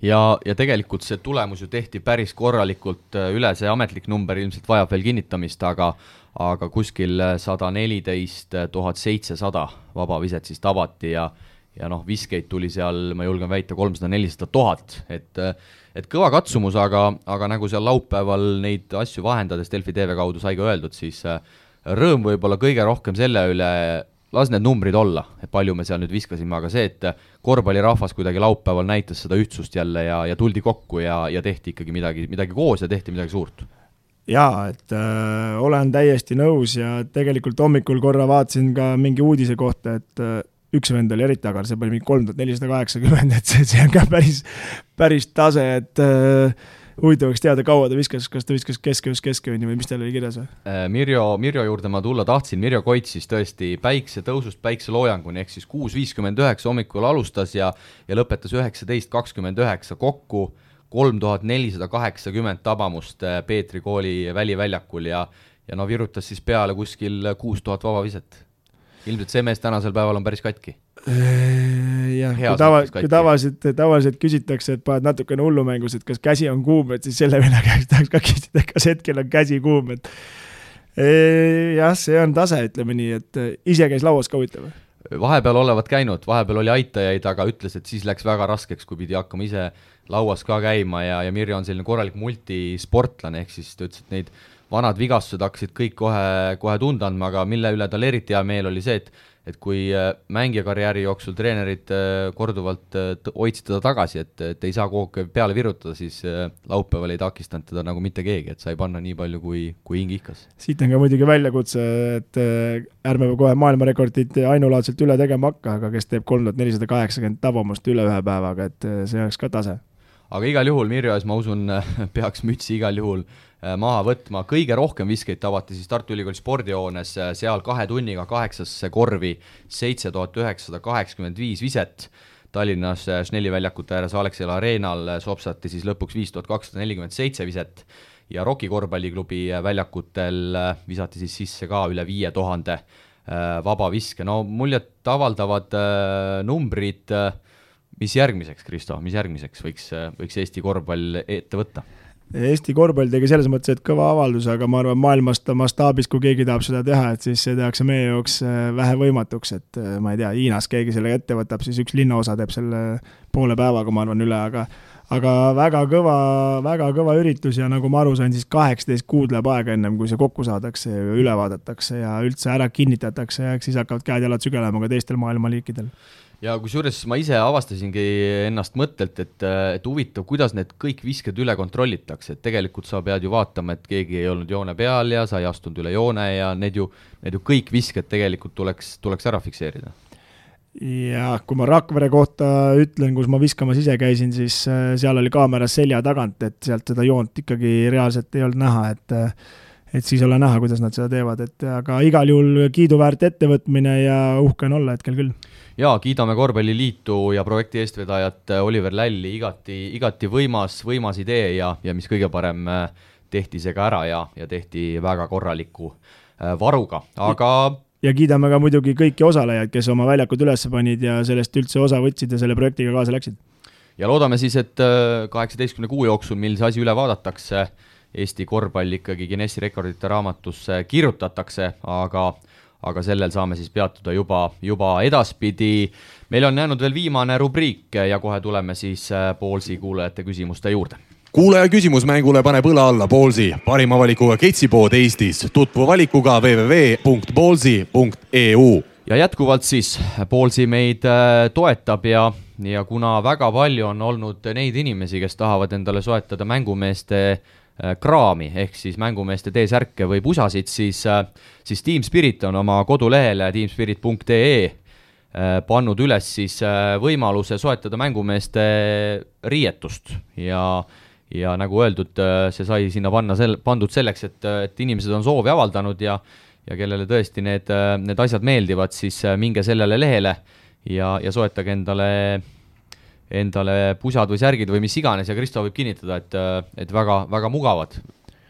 Ja tegelikult see tulemus ju tehti päris korralikult üle, see ametlik number ilmselt vajab veel kinnitamist, aga aga kuskil 114 700 vabaviset siis tabati ja noh, viskeid tuli seal, ma julgen väita, 300-400 000, et kõva katsumus, aga nagu seal laupäeval neid asju vahendades Delfi TV kaudu sai ka öeldud, siis rõõm võib-olla kõige rohkem selle üle, las need numbrid olla, et palju me seal nüüd viskasime, aga see, et korvpallirahvas kuidagi laupäeval näitas seda ühtsust jälle ja tuldi kokku ja tehti ikkagi midagi koos ja tehti midagi suurt. Jaa, et olen täiesti nõus ja tegelikult hommikul korra vaatasin ka mingi uudise kohta, et üks vend oli eriti agar, see pani mingi 3480, et see on ka päris tase, et huvitavaks teada, kaua ta viskas, kas ta viskas keskövni või mis tal oli kirjas või? Mirjo juurde ma tulla tahtsin, Mirjo Koits siis tõesti päiksetõusust päikseloojanguni, ehk siis 6.59 hommikul alustas ja lõpetas 19.29 kokku 3480 tabamust Peetri kooli väliväljakul ja no virutas siis peale kuskil 6000 vabaviset. Ilmselt see mees tänasel päeval on päris katki. Jah, kui tavaliselt küsitakse, et paned natukene hullumängus, et kas käsi on kuum, et siis selle venna käest tahaks ka küsida, kas hetkel on käsi kuum. Jah, see on tase, ütleme nii, et ise käis lauas ka huvitav. Vahepeal olevat käinud, vahepeal oli aitajaid, aga ütles, et siis läks väga raskeks, kui pidi hakkama ise lauas ka käima ja Mirjo on selline korralik multisportlane, ehk siis ta ütles, et neid vanad vigastused hakkasid kõik kohe tunda andma, aga mille üle tal eriti hea meel oli see, et kui mängijakarjääri jooksul treenerid korduvalt hoidsid teda tagasi, et ei saa kogu peale virutada, siis laupäeval ei takistanud teda nagu mitte keegi, et sai panna nii palju kui hing ihkas. Siit on ka muidugi väljakutse, et ärme kohe maailmarekordit ainulaadselt üle tegema hakka, aga kes teeb 3480 tabamust üle ühe päevaga, et see oleks ka tase. Aga igal juhul Mirjo ees, ma usun, peaks mütsi igal juhul maha võtma. Kõige rohkem viskeid tabati siis Tartu Ülikooli spordihoones, seal 2 tunniga 8 korvi 7985 viset. Tallinnas Schnelli väljakute ääres Alexela Areenal sopsati siis lõpuks 5247 viset ja Rocki korvpalliklubi väljakutel visati siis sisse ka üle 5000 vabaviske. No muljet avaldavad numbrid. Mis järgmiseks, Kristo, mis järgmiseks võiks Eesti korvpall ette võtta? Eesti korvpall tegi selles mõttes, et kõva avaldus, aga ma arvan maailmast mastaabis, kui keegi tahab seda teha, et siis see tehakse meie jooks vähe võimatuks, et ma ei tea, Hiinas keegi selle ette võtab, siis üks linnaosa teeb selle poole päevaga, ma arvan, üle, aga väga kõva üritus ja nagu ma aru sain, siis 18 kuud läheb aega ennem, kui see kokku saadakse ja üle vaadatakse ja üldse ära kinnitatakse ja siis hakkavad käed-jalad sügelema ka teistel maailmaliikidel. Ja kusjuures ma ise avastasingi ennast mõttelt, et huvitav, kuidas need kõik visked üle kontrollitakse, et tegelikult sa pead ju vaatama, et keegi ei olnud joone peal ja sa ei astunud üle joone ja need ju kõik visked tegelikult tuleks ära fikseerida. Ja kui ma Rakvere kohta ütlen, kus ma viskamas ise käisin, siis seal oli kaameras selja tagant, et sealt seda joont ikkagi reaalselt ei olnud näha, et siis ole näha, kuidas nad seda teevad, aga igal juhul kiiduväärt ettevõtmine ja uhke on olla hetkel küll. Ja kiidame Korvpalliliitu ja projekti eestvedajat Oliver Lälli, igati võimas idee ja mis kõige parem tehti see ka ära ja tehti väga korraliku varuga, aga ja kiidame ka muidugi kõiki osalejaid, kes oma väljakud üles panid ja sellest üldse osa võtsid ja selle projektiga kaasa läksid. Ja loodame siis, et 18 kuu jooksul, mil see asi üle vaadatakse, Eesti korvpall ikkagi Guinessi rekordite raamatusse kirjutatakse, aga sellel saame siis peatuda juba edaspidi. Meil on jäänud veel viimane rubriik ja kohe tuleme siis Ballsi kuulajate küsimuste juurde. Kuulaja küsimusmängule paneb õla alla Ballsi, parima valikuga ketsipood Eestis. Tutvu valikuga www.ballsi.eu. Ja jätkuvalt siis Ballsi meid toetab ja kuna väga palju on olnud neid inimesi, kes tahavad endale soetada mängumeeste kraami, ehk siis mängumeeste T-särke või pusasid, siis Team Spirit on oma kodulehele teamspirit.ee pannud üles siis võimaluse soetada mängumeeste riietust ja nagu öeldud, see sai sinna pandud selleks, et inimesed on soovi avaldanud ja kellele tõesti need asjad meeldivad, siis minge sellele lehele ja soetage endale pusad või särgid või mis iganes ja Kristo võib kinnitada, et väga, väga mugavad.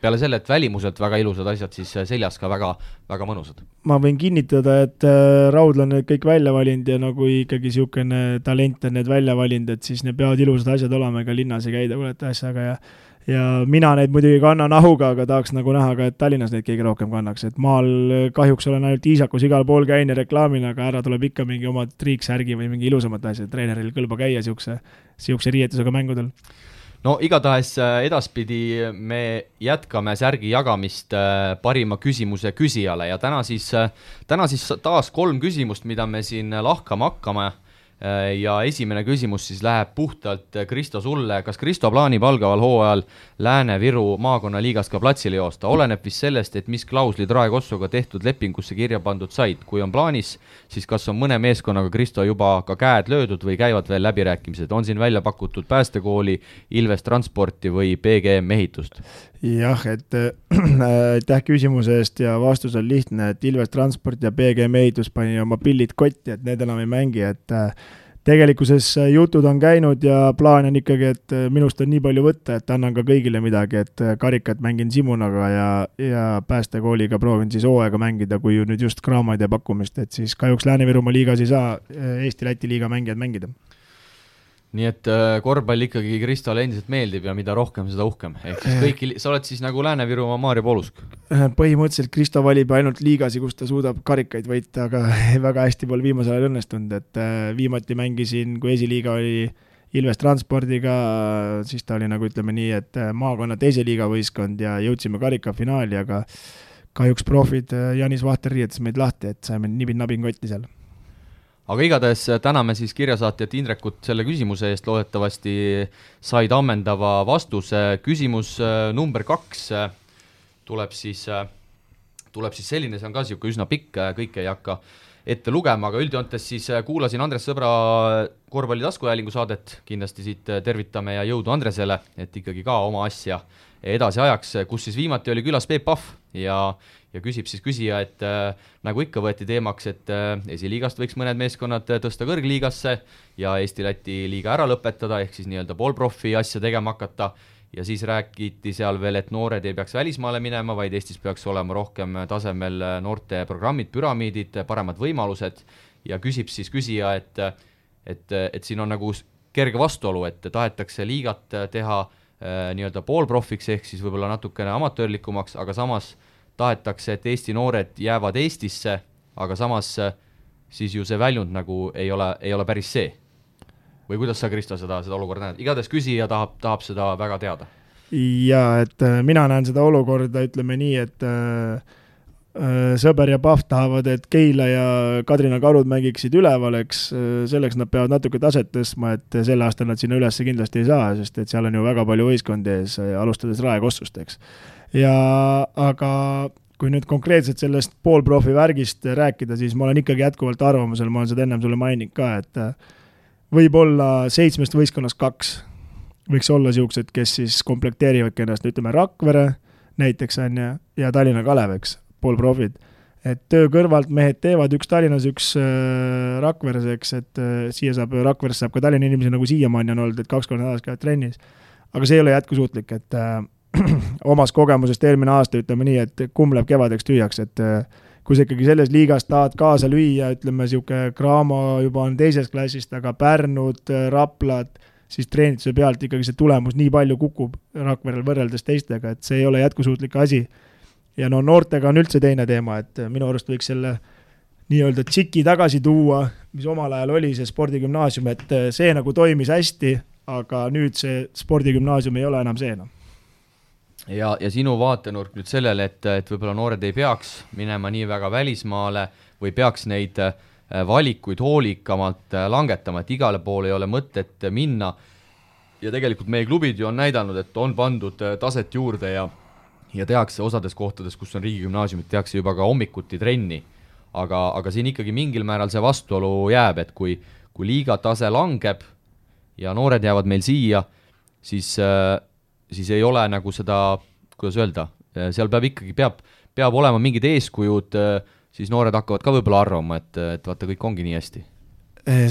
peale selle, et välimuselt väga ilusad asjad, siis seljas ka väga, väga mõnusad. Ma võin kinnitada, et Raudla on need kõik välja valinud ja nagu ikkagi niisugune talent on need välja valinud, et siis need peavad ilusad asjad olema, ega linnas ei käida kuulete asjaga ja mina neid muidugi kannan ahuga, aga tahaks nagu näha ka, et Tallinnas neid keegi rohkem kannaks, et maal kahjuks olen ainult Iisakus igal pool käin ja reklaamina, aga ära tuleb ikka mingi oma triiksärgi või mingi ilusamat asja, treeneril kõlba käia siukse riietusega mängudel. No igatahes edaspidi me jätkame särgi jagamist parima küsimuse küsijale ja täna siis taas 3 küsimust, mida me siin lahkama hakkame ja esimene küsimus siis läheb puhtalt Kristo sulle. Kas Kristo plaanib algaval hooajal Lääne-Viru maakonnaliigast ka platsile joosta? Oleneb vist sellest, et mis klauslid Rae Kossuga tehtud lepingusse kirja pandud said. Kui on plaanis, siis kas on mõne meeskonnaga Kristo juba ka käed löödud või käivad veel läbirääkimised? On siin välja pakutud Päästekooli, Ilves Transporti või PGM ehitust? Jah, et aitäh küsimuse eest ja vastus on lihtne, et Ilves Transport ja PGM ehitus pani oma pillid kotti, et need enam ei mängi, et tegelikkuses jutud on käinud ja plaan on ikkagi, et minust on nii palju võtta, et annan ka kõigile midagi, et karikat mängin Simunaga ja Päästekooliga proovin siis hooaega mängida, kui nüüd just kraamaid ja pakkumist, et siis kahjuks Lääne-Virumaa liigas ei saa Eesti-Läti liiga mängijad mängida. Nii et korvpall ikkagi Kristole endiselt meeldib ja mida rohkem, seda uhkem. Ehk siis kõiki, sa oled siis nagu Lääne-Virumaa Maarja Poolusk? Põhimõtteliselt Kristo valib ainult liigasi, kus ta suudab karikaid võita, aga väga hästi pole viimasel ajal õnnestunud, et viimati mängisin, kui esiliiga oli Ilves Transpordiga, siis ta oli nagu ütleme nii, et maakonna teise liiga võistkond ja jõudsime karikafinaali, aga kahjuks profid Janis Vahter riietas meid lahti, et saime nibin-nabin kotti seal. Aga igatahes täname siis kirjasaatjat Indrekut selle küsimuse eest, loodetavasti said ammendava vastuse. Küsimus number 2 tuleb siis selline, see on ka siuke üsna pikk, kõike ei hakka ette lugema, aga üldjoontes siis kuulasin Andres Sõbra korvpalli taskuhäälingu saadet, kindlasti siit tervitame ja jõudu Andresele, et ikkagi ka oma asja edasi ajaks, kus siis viimati oli külas Peep Pahv ja küsib siis küsija, et nagu ikka võeti teemaks, et esiliigast võiks mõned meeskonnad tõsta kõrgliigasse ja Eesti-Läti liiga ära lõpetada, ehk siis nii-öelda poolprofi asja tegema hakata ja siis räägiti seal veel, et noored ei peaks välismaale minema, vaid Eestis peaks olema rohkem tasemel noorte programmid, püramiidid, paremad võimalused ja küsib siis küsija, et siin on nagu kerge vastuolu, et tahetakse liigat teha nii-öelda poolprofiks ehk siis võib-olla natukene amatöörlikumaks, aga samas tahetakse, et Eesti noored jäävad Eestisse, aga samas siis ju see väljund nagu ei ole päris see. Või kuidas sa, Kristo, seda olukorda näed? Igatahes küsija tahab seda väga teada. Jaa, et mina näen seda olukorda, ütleme nii, et Sõber ja Pahv tahavad, et Keila ja Kadrina Karud mängiksid üleval, eks selleks nad peavad natuke taset tõstma, et selle aasta nad sinna üles kindlasti ei saa, sest et seal on ju väga palju võistkondi ees, alustades Rae Kossust, eks. Aga kui nüüd konkreetselt sellest poolprofi värgist rääkida, siis ma olen ikkagi jätkuvalt arvamusel, ma olen seda ennem sulle maininud ka, et võib-olla 7 võistkonnast 2 võiks olla siuksed, kes siis komplekteerivad ennast, ütleme Rakvere näiteks on ja Tallinna Kalev, eks, poolprofid. Et töö kõrvalt mehed teevad, üks Tallinnas, üks Rakveres, eks, et Rakveres saab ka Tallinna inimesi nagu siiamaani on olnud, et 2 korda nädalas käivad trennis. Aga see ei ole jätkusuutlik, et omas kogemusest eelmine aasta ütleme nii, et kumb läheb kevadeks tüüjaks, et kui sa ikkagi selles liigas tahad kaasa lüüa, ütleme siuke Graamo juba on teises klassist, aga Pärnud, Raplad, siis treenituse pealt ikkagi see tulemus nii palju kukub Rakverel võrreldes teistega, et see ei ole jätkusuutlik asi. Ja no noortega on üldse teine teema, et minu arust võiks selle nii-öelda tšiki tagasi tuua, mis omal ajal oli see spordigümnaasium, et see nagu toimis hästi, aga nüüd see spordigümnaasium ei ole enam see enam. Ja sinu vaatenurk nüüd sellele, et võib-olla noored ei peaks minema nii väga välismaale või peaks neid valikuid hoolikamalt langetama, et igale poole ei ole mõtet minna. Ja tegelikult meie klubid ju on näidanud, et on pandud taset juurde ja tehakse osades kohtades, kus on riigigümnaasiumid, tehakse juba ka hommikuti trenni. Aga siin ikkagi mingil määral see vastuolu jääb, et kui liiga tase langeb ja noored jäävad meil siia, siis ei ole nagu seda, kuidas öelda, seal peab olema mingid eeskujud, siis noored hakkavad ka võib-olla arvama, et vaata, kõik ongi nii hästi.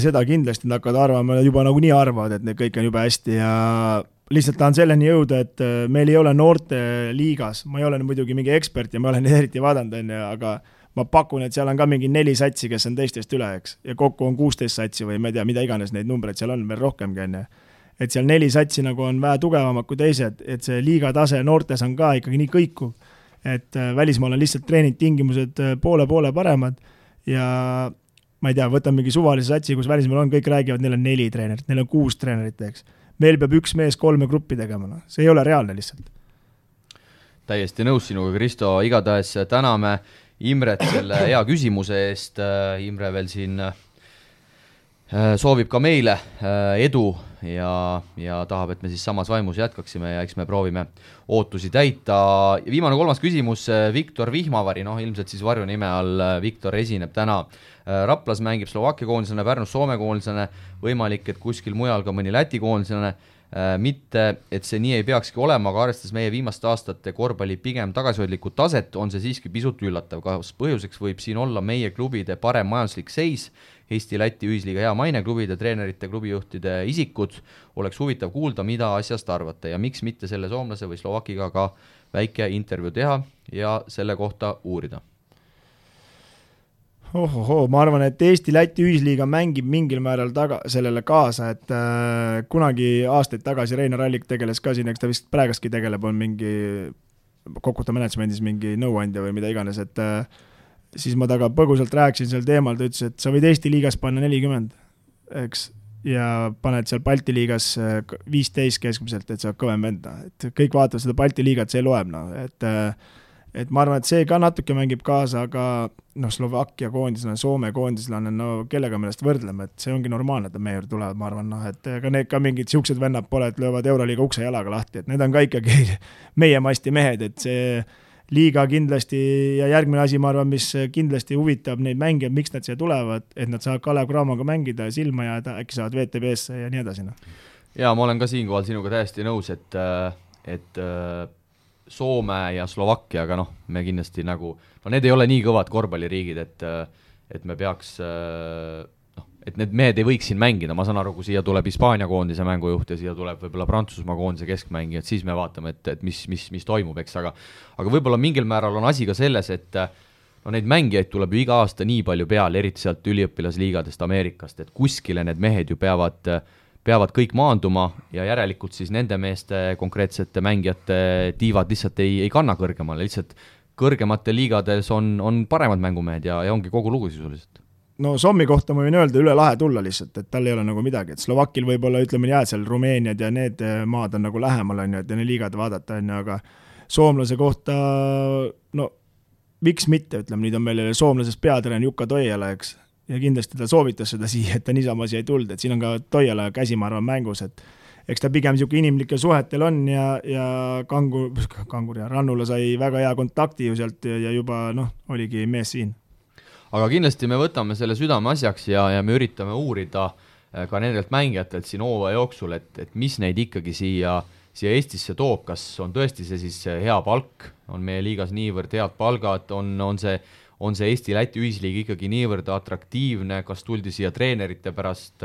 Seda kindlasti nad hakkavad arvama, juba nagu nii arvavad, et need kõik on juba hästi lihtsalt tahan selleni jõuda, et meil ei ole noorte liigas, ma ei ole muidugi mingi ekspert ja ma olen eriti vaadanud, aga ma pakun, et seal on ka mingi 4 satsi, kes on teistest üle, eks, ja kokku on 16 satsi või ma ei tea, mida iganes neid numbreid seal on, veel rohkemgi on. Et seal 4 satsi nagu on vähe tugevamad kui teised, et see liiga tase noortes on ka ikkagi nii kõikuv, et välismaal on lihtsalt treeningtingimused poole paremad ja ma ei tea, võtan mingi suvalise satsi, kus välismaal on, kõik räägivad, neil on 4 treenerit, neil on 6 treenerit, eks. Meil peab üks mees 3 gruppi tegema, no. See ei ole reaalne lihtsalt. Täiesti nõus sinuga, Kristo, igatahes täname Imret selle hea küsimuse eest. Imre veel siin soovib ka meile edu ja tahab, et me siis samas vaimus jätkaksime ja eks me proovime ootusi täita. Viimane 3. küsimus, Viktor Vihmavari, ilmselt siis varjunime all Viktor esineb täna. Raplas mängib Slovakkia koondisena, Pärnus Soome koondisena, võimalik, et kuskil mujal ka mõni Läti koondisena. Mitte, et see nii ei peakski olema, aga arvestades meie viimaste aastate korvpalli pigem tagasihoidlikku taset, on see siiski pisut üllatav. Kas põhjuseks võib siin olla meie klubide parem majanduslik seis, Eesti-Läti ühisliiga hea maine, klubide, treenerite, klubijuhtide isikud? Oleks huvitav kuulda, mida asjast arvate ja miks mitte selle soomlase või Slovakiga ka väike intervjuu teha ja selle kohta uurida. Ma arvan, et Eesti-Läti ühisliiga mängib mingil määral sellele kaasa, et kunagi aastaid tagasi Reinar Allik tegeles ka siin, eks ta vist praegastki tegeleb, on mingi Kokuta managemendis mingi nõuandja või mida iganes, et siis ma taga põgusalt rääkisin sel teemal, ta ütles, et sa võid Eesti liigas panna 40, eks, ja paned seal Balti liigas 15 keskmiselt, et sa oled kõvem vend, et kõik vaatavad seda Balti liigat, see loeb, et ma arvan, et see ka natuke mängib kaasa, aga Slovakkia koondislane, Soome koondislane, kellega meelest võrdleme, et see ongi normaalne, et meie juurde tulevad, ma arvan, et ka need ka mingid siuksed vennad pole, et löövad Euroliiga ukse jalaga lahti, et need on ka ikkagi meie masti mehed, et see liiga kindlasti ja järgmine asi, ma arvan, mis kindlasti huvitab neid mängijad, miks nad siia tulevad, et nad saavad Kalev Cramoga mängida ja silma jääda, äkki saavad VTB-sse ja nii edasi. Ja ma olen ka siinkohal sinuga täiesti nõus, et Soome ja Slovakkia, aga me kindlasti need ei ole nii kõvad korvpalliriigid, et me peaks, et need mehed ei võiks siin mängida, ma saan aru, kui siia tuleb Hispaania koondise mängujuht ja siia tuleb võib-olla Prantsusmaa koondise keskmängi, et siis me vaatame, et mis toimub, eks, aga võib-olla mingil määral on asi ka selles, et neid mängijaid tuleb ju iga aasta nii palju peale, eriti sealt üliõpilasliigadest Ameerikast, et kuskile need mehed ju peavad kõik maanduma ja järelikult siis nende meeste konkreetsete mängijate tiivad lihtsalt ei kanna kõrgemale, lihtsalt kõrgematel liigades on paremad mängumehed ja ongi kogu lugu sisuliselt. Sommi kohta ma võin öelda üle lahe tulla lihtsalt, et tal ei ole nagu midagi, et Slovakil võib-olla ütleme jääd seal Rumeeniad ja need maad on nagu lähemal, et ne liigad vaadata, aga soomlase kohta, miks mitte, ütleme, nüüd on meil soomlasest peatreen Jukka Toijala, eks, ja kindlasti ta soovitas seda siia, et ta niisama siia ei tulnud, et siin on ka Toijala käsi, ma arvan, mängus, et eks ta pigem niisugune inimlikel suhetel on ja Kangur ja Rannula sai väga hea kontakti ju sealt ja juba oligi mees siin. Aga kindlasti me võtame selle südame asjaks ja me üritame uurida ka nendelt mängijatelt siin hooaja jooksul, et mis neid ikkagi siia Eestisse toob, kas on tõesti see siis hea palk, on meie liigas niivõrd head palgad, on see Eesti-Läti ühisliig ikkagi niivõrd atraktiivne, kas tuldi siia treenerite pärast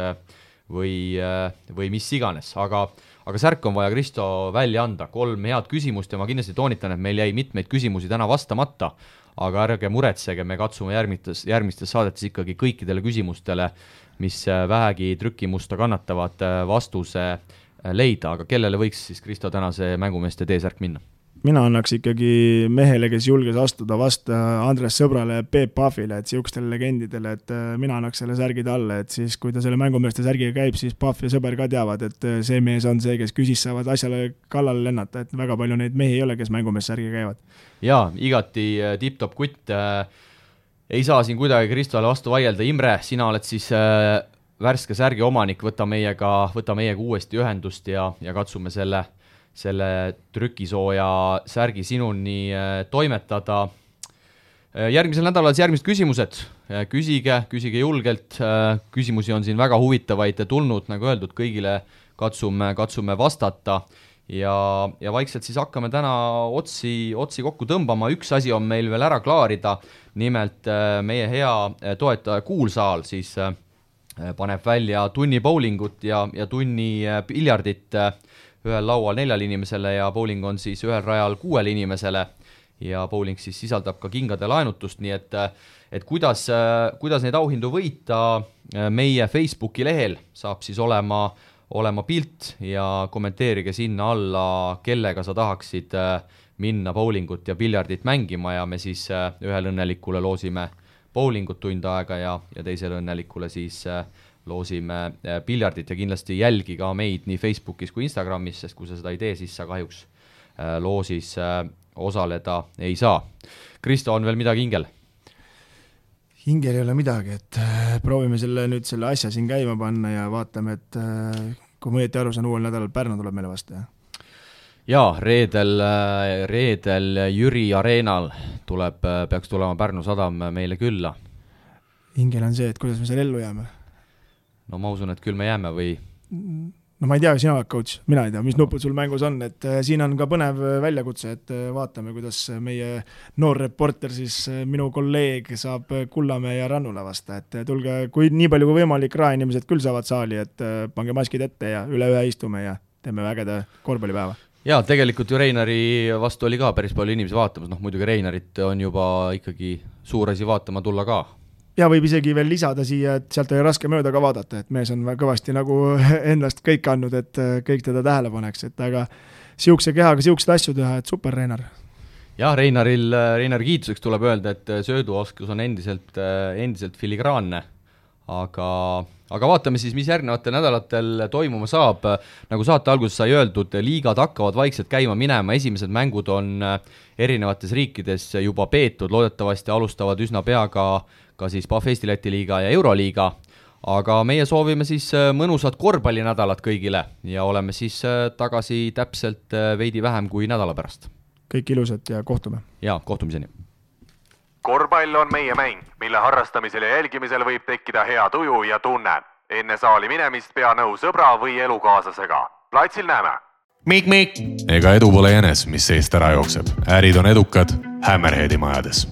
või mis iganes, aga särk on vaja, Kristo, välja anda 3 head küsimust ja ma kindlasti toonitan, et meil jäi mitmeid küsimusi täna vastamata, aga ärge muretsege, me katsume järgmistes saadetes ikkagi kõikidele küsimustele, mis vähegi trükimusta kannatavad, vastuse leida, aga kellele võiks siis, Kristo, tänase mängumeeste T-särk minna? Mina annaks ikkagi mehele, kes julges astuda vastu Andres Sõbrale ja Peep Pahvile, et siukestele legendidele, et mina annaks selle särgi talle, et siis kui ta selle mängumeeste särgiga käib, siis Pahv ja Sõber ka teavad, et see mees on see, kes küsis saavad asjale kallale lennata, et väga palju neid mehi ei ole, kes mängumeeste särgiga käivad. Jaa, igati tipp-top kutt, ei saa siin kuidagi Kristole vastu vaielda. Imre, sina oled siis värske särgi omanik, võta meiega uuesti ühendust ja katsume selle trükisooja särgi sinuni toimetada. Järgmisel nädalal järgmised küsimused. Küsige julgelt. Küsimusi on siin väga huvitavaid tulnud, nagu öeldud, kõigile katsume vastata ja vaikselt siis hakkame täna otsi kokku tõmbama. Üks asi on meil veel ära klaarida, nimelt meie hea toetaja Kuulsaal siis paneb välja tunni bowlingut ja tunni piljardit ühel laual 4 inimesele ja bowling on siis ühel rajal 6 inimesele ja bowling siis sisaldab ka kingade laenutust, nii et kuidas neid auhindu võita, meie Facebooki lehel saab siis olema pilt ja kommenteerige sinna alla, kellega sa tahaksid minna bowlingut ja piljardit mängima ja me siis ühel õnnelikule loosime bowlingut tund aega ja teisele õnnelikule siis loosime piljardit ja kindlasti jälgi ka meid nii Facebookis kui Instagramis, sest kui sa seda ei tee, siis sa kahjuks loosis osaleda ei saa. Kristo, on veel midagi hingel? Hingel ei ole midagi, et proovime selle asja siin käima panna ja vaatame, et kui ma õieti aru saan, uuel nädalal Pärnu tuleb meile vastu, jah? Jaa, reedel Jüri Areenal peaks tulema Pärnu Sadam meile külla. Hingel on see, et kuidas me seal ellu jääme? No ma usun, et küll me jääme või... No ma ei tea, sina oled coach, mina ei tea, mis nupud sul mängus on, et siin on ka põnev väljakutse, et vaatame, kuidas meie noor reporter, siis minu kolleeg saab Kullamäe ja Rannula vasta, et tulge, kui nii palju kui võimalik, raeinimesed küll saavad saali, et pange maskid ette ja üle ühe istume ja teeme vägede korvpallipäeva. Jaa, tegelikult ju Reinari vastu oli ka päris palju inimesi vaatamas, muidugi Reinarit on juba ikkagi suur asi vaatama tulla ka. Ja võib isegi veel lisada siia, et sealt oli raske mööda ka vaadata, et mees on kõvasti nagu endast kõik andnud, et kõik teda tähele paneks, et aga siukse kehaga siuksed asju teha, et super Reinar. Jah, Reinari kiituseks tuleb öelda, et sööduoskus on endiselt filigraanne, aga vaatame siis, mis järgnevatel nädalatel toimuma saab. Nagu saate alguses sai öeldud, liigad hakkavad vaikselt käima minema, esimesed mängud on erinevates riikides juba peetud, loodetavasti alustavad üsna pea ka siis PAF Eesti Läti liiga ja Euroliiga, aga meie soovime siis mõnusat korvpallinädalat kõigile ja oleme siis tagasi täpselt veidi vähem kui nädala pärast. Kõik ilusat ja kohtume. Ja, kohtumiseni. Korvpall on meie mäng, mille harrastamisel ja jälgimisel võib tekkida hea tuju ja tunne. Enne saali minemist pea nõu sõbra või elukaaslasega. Platsil näeme. Mik. Ega edu pole jänes, mis seest ära jookseb. Ärid on edukad Hammerheadi majades.